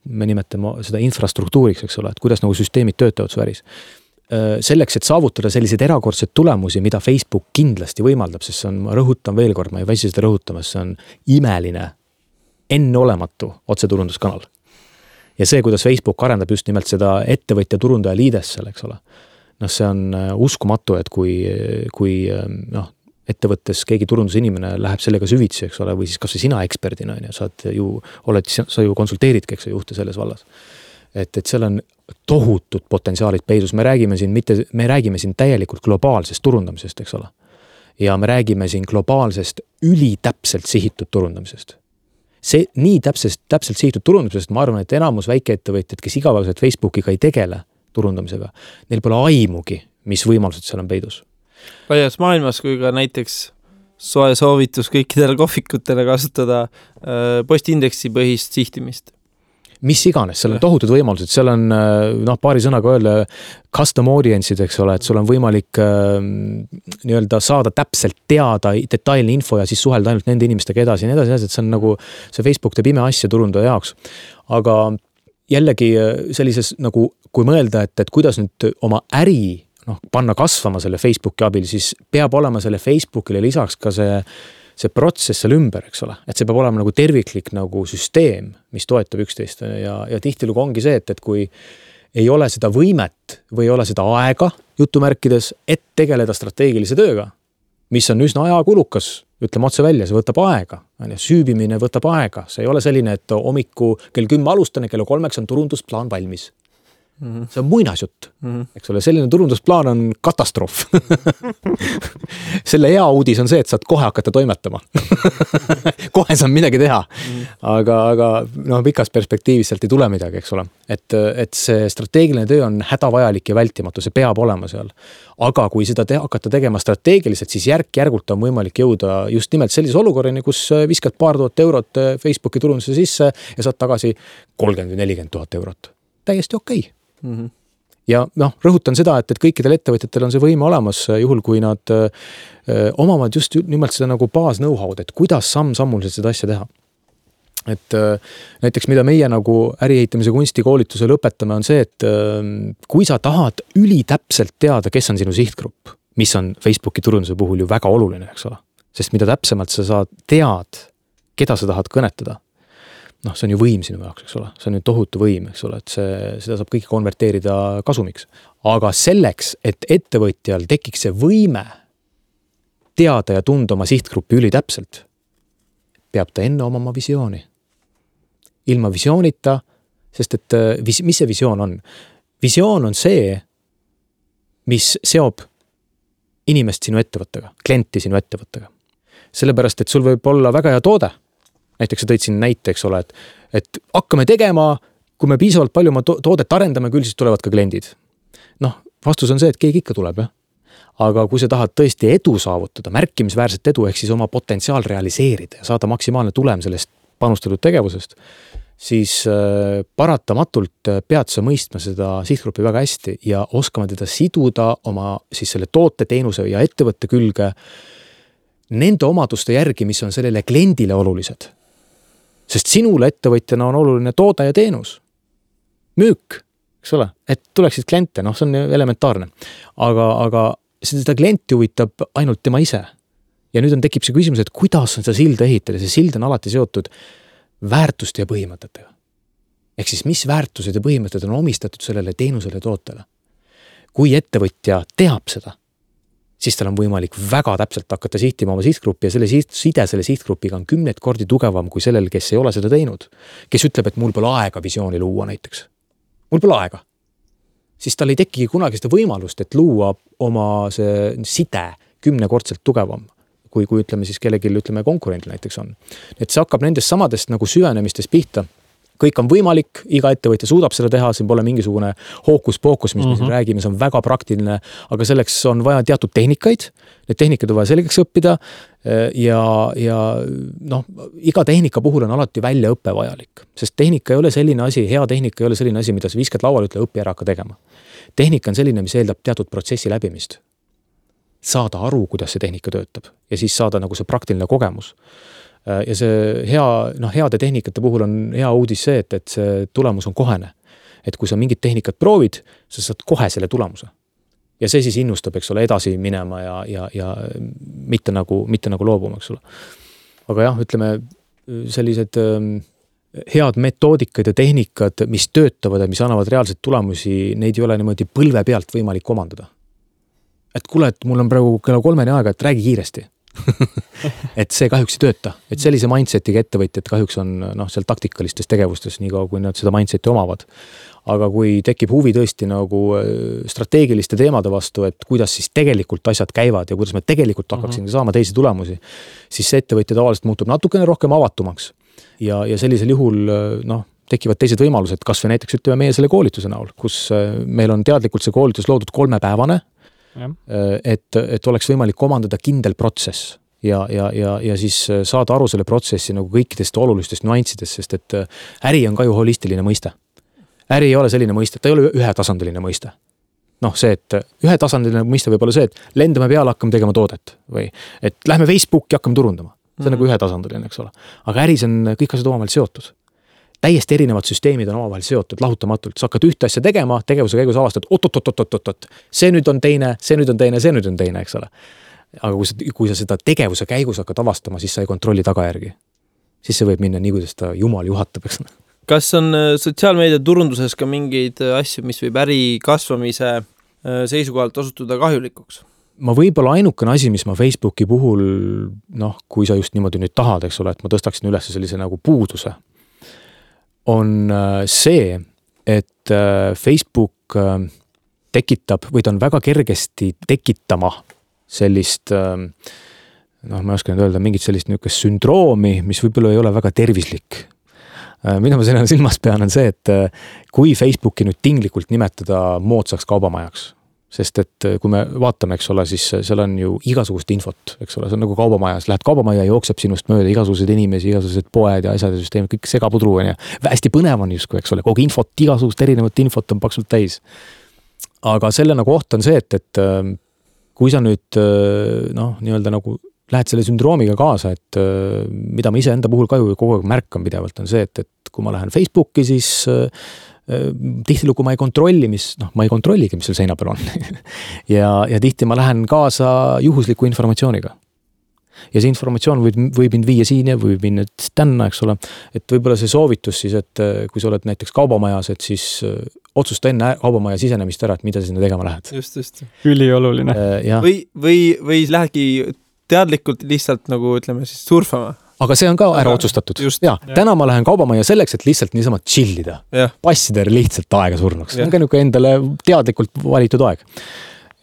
me nimetame seda infrastruktuuriks, eks ole, et kuidas nagu süsteemid töötavad su äris. Selleks, et saavutada selliseid erakordseid tulemusi, mida Facebook kindlasti võimaldab, sest see on, ma rõhutan veel kord, ma ei väsi seda rõhutamas, see on imeline, enneolematu otseturunduskanal. ja see, kuidas Facebook arendab just nimelt seda ettevõtja turundaja liides seal, eks ole. Noh, see on uskumatu, et kui ettevõttes keegi turundusinimene läheb sellega süvitsi, eks ole, või siis kas või sina eksperdina, sa ju konsulteeridki, eks juhte selles vallas. Et seal on tohutud potentsiaalid peidus. Me räägime siin täielikult globaalsest turundamisest, eks ole. Ja me räägime siin globaalsest ülitäpselt sihitud turundamisest. See nii täpselt sihitud turundamisest, ma arvan, et enamus väikeettevõtjad, kes igapäevaselt Facebookiga ei tegele turundamisega, neil pole aimugi, mis võimalused seal on peidus. Laias maailmas, kui ka näiteks soe soovitus kõikidele kohvikutele kasutada postindeksi põhist sihtimist. Mis iganes, seal on tohutud võimalused, seal on paari sõnaga öelda custom audience'id, eks ole, et sul on võimalik nii-öelda saada täpselt teada detailne info ja siis suhelda ainult nende inimestega edasi ja nii edasi, et see on nagu see Facebook teeb ime asja turundaja jaoks. Aga jällegi sellises nagu, kui mõelda, et kuidas nüüd oma äri panna kasvama selle Facebooki abil, siis peab olema selle Facebookile lisaks ka see protsess seal ümber, eks ole. Et see peab olema nagu terviklik nagu süsteem, mis toetab üksteist ja tihtilugu ongi see, et kui ei ole seda võimet või ei ole seda aega jutumärkides, et tegeleda strateegilise tööga, mis on üsna ajakulukas, ütleme otse välja, see võtab aega. Süübimine võtab aega. See ei ole selline, et hommiku kell 10 alustan ja kell 3 on turundusplaan valmis. See on muinasjutt, eks ole, selline turundusplaan on katastroof. Selle hea uudis on see, et saad kohe hakata toimetama. Kohe saab midagi teha. Aga pikas perspektiivis sealt ei tule midagi, eks ole. Et see strateegiline töö on hädavajalik ja vältimatu, see peab olema seal. Aga kui seda hakata tegema strateegiliselt, siis järk-järgult on võimalik jõuda just nimelt sellise olukorrani, kus viskad paar tuhat eurot Facebooki turunduse sisse ja saad tagasi 30-40 000 eurot. Täiesti okei. Ja rõhutan seda, et kõikidel ettevõtjatel on see võime olemas, juhul kui nad omavad just nimelt seda nagu baas know-how'd, et kuidas samm-sammuliselt seda asja teha. Et näiteks mida meie nagu äriehitamise kunstikoolitusel õpetame on see, et kui sa tahad ülitäpselt teada, kes on sinu sihtgrupp, mis on Facebooki turunduse puhul ju väga oluline, eks ole. Sest mida täpsemalt sa saad tead, keda sa tahad kõnetada, see on ju võim sinu jaoks, eks ole. See on ju tohutu võim, eks ole, et seda saab kõike konverteerida kasumiks. Aga selleks, et ettevõtjal tekiks see võime teada ja tunda oma sihtgruppi ülitäpselt, peab ta enne omama visiooni. Ilma visioonita, sest et mis see visioon on? Visioon on see, mis seob inimest sinu ettevõttega, klienti sinu ettevõttega. Sellepärast, et sul võib olla väga hea toode. Näiteks sa tõid siin näite, eks ole, et hakkame tegema, kui me piisavalt palju oma toodet arendame, küll siis tulevad ka kliendid. Vastus on see, et keegi ikka tuleb, jah. Aga kui sa tahad tõesti edu saavutada, märkimisväärset edu, ehk siis oma potentsiaal realiseerida ja saada maksimaalne tulem sellest panustatud tegevusest, siis paratamatult pead sa mõistma seda sihtgruppi väga hästi ja oskama teda siduda oma siis selle toote, teenuse ja ettevõtte külge nende omaduste järgi, mis on sellele kliendile olulised. Sest sinule ettevõtjana on oluline toode ja teenus. Müük, eks ole, et tuleksid kliente, see on elementaarne. Aga seda klienti huvitab ainult tema ise. Ja nüüd tekib see küsimus, et kuidas on seda silda ehitada. See sild on alati seotud väärtuste ja põhimõtetega. Ehk siis mis väärtused ja põhimõtted on omistatud sellele teenusele ja tootele. Kui ettevõtja teab seda, siis tal on võimalik väga täpselt hakata sihtima oma sihtgruppi ja side selle sihtgrupiga on 10 kordi tugevam kui sellel, kes ei ole seda teinud. Kes ütleb, et mul pole aega visiooni luua näiteks. Mul pole aega. Siis tal ei tekigi kunagi seda võimalust, et luua oma see side 10 kordselt tugevam, kui ütleme siis kellelgi konkurendil näiteks on. Et see hakkab nendest samadest nagu süvenemistest pihta. Kõik on võimalik, iga ettevõtja suudab seda teha, siin pole mingisugune hookus-pookus, mis me siin räägime, see on väga praktiline, aga selleks on vaja teatud tehnikaid, need tehnikad on vaja selgeks õppida ja iga tehnika puhul on alati väljaõppe vajalik, sest tehnika ei ole selline asi, hea tehnika ei ole selline asi, mida sa viskad lauale, ütle õpi ära hakka tegema. Tehnika on selline, mis eeldab teatud protsessi läbimist. Saada aru, kuidas see tehnika töötab ja siis saada nagu see praktiline kogemus. Ja see heade tehnikate puhul on hea uudis see, et see tulemus on kohene. Et kui sa mingit tehnikat proovid, sa saad kohe selle tulemuse. Ja see siis innustab, eks ole, edasi minema ja mitte nagu loobuma, eks ole. Aga jah, ütleme, sellised head metoodikad ja tehnikad, mis töötavad ja mis annavad reaalselt tulemusi, neid ei ole niimoodi põlve pealt võimalik omandada. Et kuule, et mul on praegu kella 3 aega, et räägi kiiresti. et see kahjuks ei tööta. Et sellise mindsetiga ettevõtjad kahjuks on seal taktikalistes tegevustes, nii kaua kui nad seda mindseti omavad. Aga kui tekib huvi tõesti nagu strateegiliste teemade vastu, et kuidas siis tegelikult asjad käivad ja kuidas me tegelikult hakkaksime saama teisi tulemusi, siis see ettevõtja tavaliselt muutub natukene rohkem avatumaks. Ja sellisel juhul tekivad teised võimalused, kas või näiteks ütleme meie selle koolituse näol, kus meil on teadlikult see koolitus loodud 3-päevane, et oleks võimalik omandada kindel protsess ja siis saada aru selle protsessi nagu kõikidest olulistest nüanssidest, sest et äri on ka ju holistiline mõiste. Äri ei ole selline mõiste, ta ei ole ühetasandiline mõiste. See, et ühetasandiline mõiste võib olla see, et lendame peale, hakkame tegema toodet või et lähme Facebooki, hakkame turundama. See on nagu ühetasandiline, eks ole. Aga äris on kõik asjad omavahel seotud. Täiesti erinevad süsteemid on omavahel seotud, lahutamatult. Sa hakkad ühte asja tegema, tegevuse käigus avastad, oot. See nüüd on teine, eks ole. Aga kui sa seda tegevuse käigus hakkad avastama, siis sa ei kontrolli tagajärgi. Siis see võib minna nii, kuidas ta jumal juhatab, eks ole. Kas on sotsiaalmeedia turunduses ka mingeid asju, mis võib äri kasvamise seisukohalt osutuda kahjulikuks? Ma võib-olla ainukene asi, mis ma Facebooki puhul, kui sa just niimoodi nüüd tahad, eks ole, et ma tõstaksin üles sellise nagu puuduse, on see, et Facebook tekitab või ta on väga kergesti tekitama sellist, ma ei oska nüüd öelda, mingit sellist niisugust sündroomi, mis võib-olla ei ole väga tervislik. Mida ma selle silmas pean on see, et kui Facebooki nüüd tinglikult nimetada moodsaks kaubamajaks, sest et kui me vaatame, eks ole, siis seal on ju igasugust infot, eks ole, see on nagu kaubamajas, lähed kaubamaja, jookseb sinust mööda igasugused inimesi, igasugused poed ja asjad ja süsteemid, kõik segapudru on ja hästi põnev on justkui, eks ole, kogu infot, igasugust erinevat infot on paksult täis. Aga selle nagu oht on see, et kui sa nüüd nii-öelda nagu lähed selle sündroomiga kaasa, et mida ma ise enda puhul ka ju kogu aeg märkan pidevalt on see, et kui ma lähen Facebooki, siis tihtilugu ma ei kontrolli, mis seal seina peal on. ja tihti ma lähen kaasa juhusliku informatsiooniga. Ja see informatsioon võib mind viia siin ja võib minna tänna, eks ole. Et võibolla see soovitus siis, et kui sa oled näiteks kaubamajas, et siis otsusta enne kaubamaja sisenemist ära, et mida sinna tegema lähed. Just. Ülioluline. Või lähedki teadlikult lihtsalt nagu ütleme siis surfama. Aga see on ka ära otsustatud. Täna ma lähen kaubamajja selleks, et lihtsalt niisama chillida. Passida lihtsalt aega surnuks. See on ka niisugune endale teadlikult valitud aeg.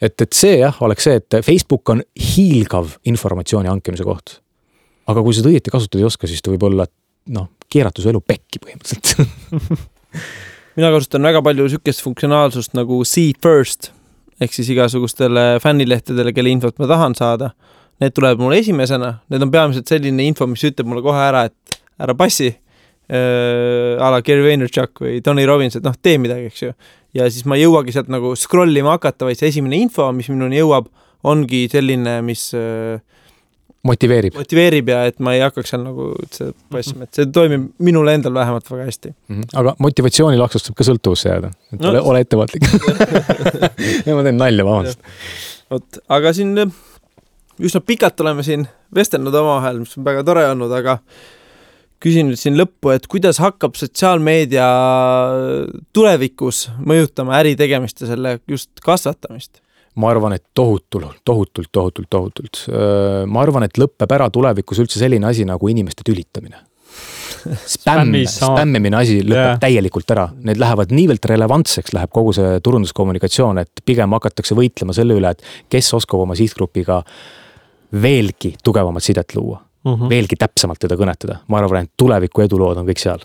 Et see oleks see, et Facebook on hiilgav informatsiooni hankimise koht. Aga kui seda õieti kasutada ei oska, siis ta võib olla keeratus elu pekki põhimõtteliselt. Mina kasutan väga palju sükest funktsionaalsust nagu see first, ehk siis igasugustele fännilehtedele, kelle infot ma tahan saada. Need tuleb mulle esimesena, need on peamiselt selline info, mis ütleb mulle kohe ära, et ära passi, a la Gary Vaynerchuk või Tony Robbins, et tee midagi, eks ju. Ja siis ma jõuagi sealt nagu scrollima hakata, vaid see esimene info, mis minuni jõuab, ongi selline, mis motiveerib ja et ma ei hakkaks seal nagu passima, et see toimib minule endal vähemalt väga hästi. Aga motivatsiooni laksust saab ka sõltuvusse jääda, et ole ettevaatlik. Ja ma teen nalja, vabandust. Aga siin üsna pikalt oleme siin vestelnud omavahel, mis on väga tore olnud, aga küsin nüüd siin lõppu, et kuidas hakkab sotsiaalmeedia tulevikus mõjutama äri tegemist ja selle just kasvatamist? Ma arvan, et tohutult. Ma arvan, et lõppeb ära tulevikus üldse selline asi nagu inimeste tülitamine. Spämmimine asi lõpeb täielikult ära. Need lähevad niivelt relevantseks, läheb kogu see turunduskommunikatsioon, et pigem hakatakse võitlema selle üle, et kes oskab oma sihtgrupiga veelgi tugevamat sidet luua. Veelgi täpsemalt teda kõnetada. Ma arvan, et tuleviku edulood on kõik seal.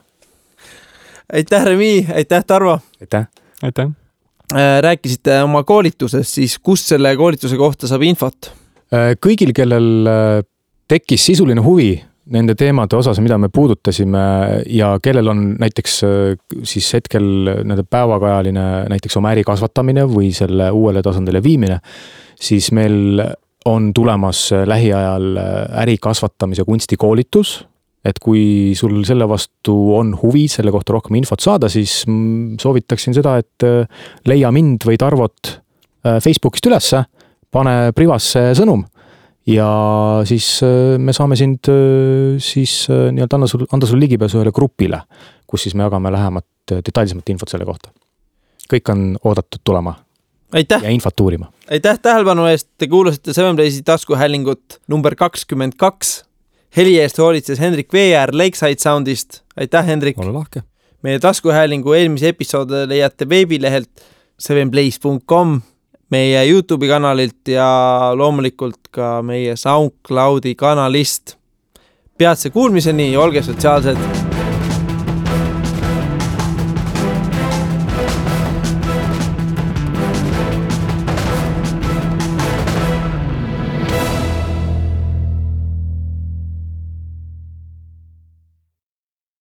Aitäh, Remi! Aitäh, Tarvo! Aitäh! Rääkisite oma koolituses, siis kus selle koolituse kohta saab infot? Kõigil, kellel tekkis sisuline huvi nende teemade osas, mida me puudutasime ja kellel on näiteks siis hetkel nende päevakajaline näiteks oma äri kasvatamine või selle uuele tasandile viimine, siis meil on tulemas lähiajal äri kasvatamise kunstikoolitus, et kui sul selle vastu on huvi selle kohta rohkem infot saada, siis soovitaksin seda, et leia mind või Tarvot Facebookist ülesse, pane privasse sõnum ja siis me saame sind siis nii-öelda anda sul ligipääsu ühele grupile, kus siis me jagame lähemat detailsemat infot selle kohta. Kõik on oodatud tulema Aitäh! Ja infot uurima. Aitäh tähelepanu eest, te kuulasite Seven Playsi taskuhäälingut number 22. Heli eest hoolitses Hendrik Veeäär Lakeside Soundist. Aitäh, Hendrik! Ole lahke! Meie taskuhäälingu eelmise episoode leiate veebilehelt sevenplays.com, meie YouTube'i kanalilt ja loomulikult ka meie SoundCloudi kanalist. Peatse kuulmiseni ja olge sotsiaalsed!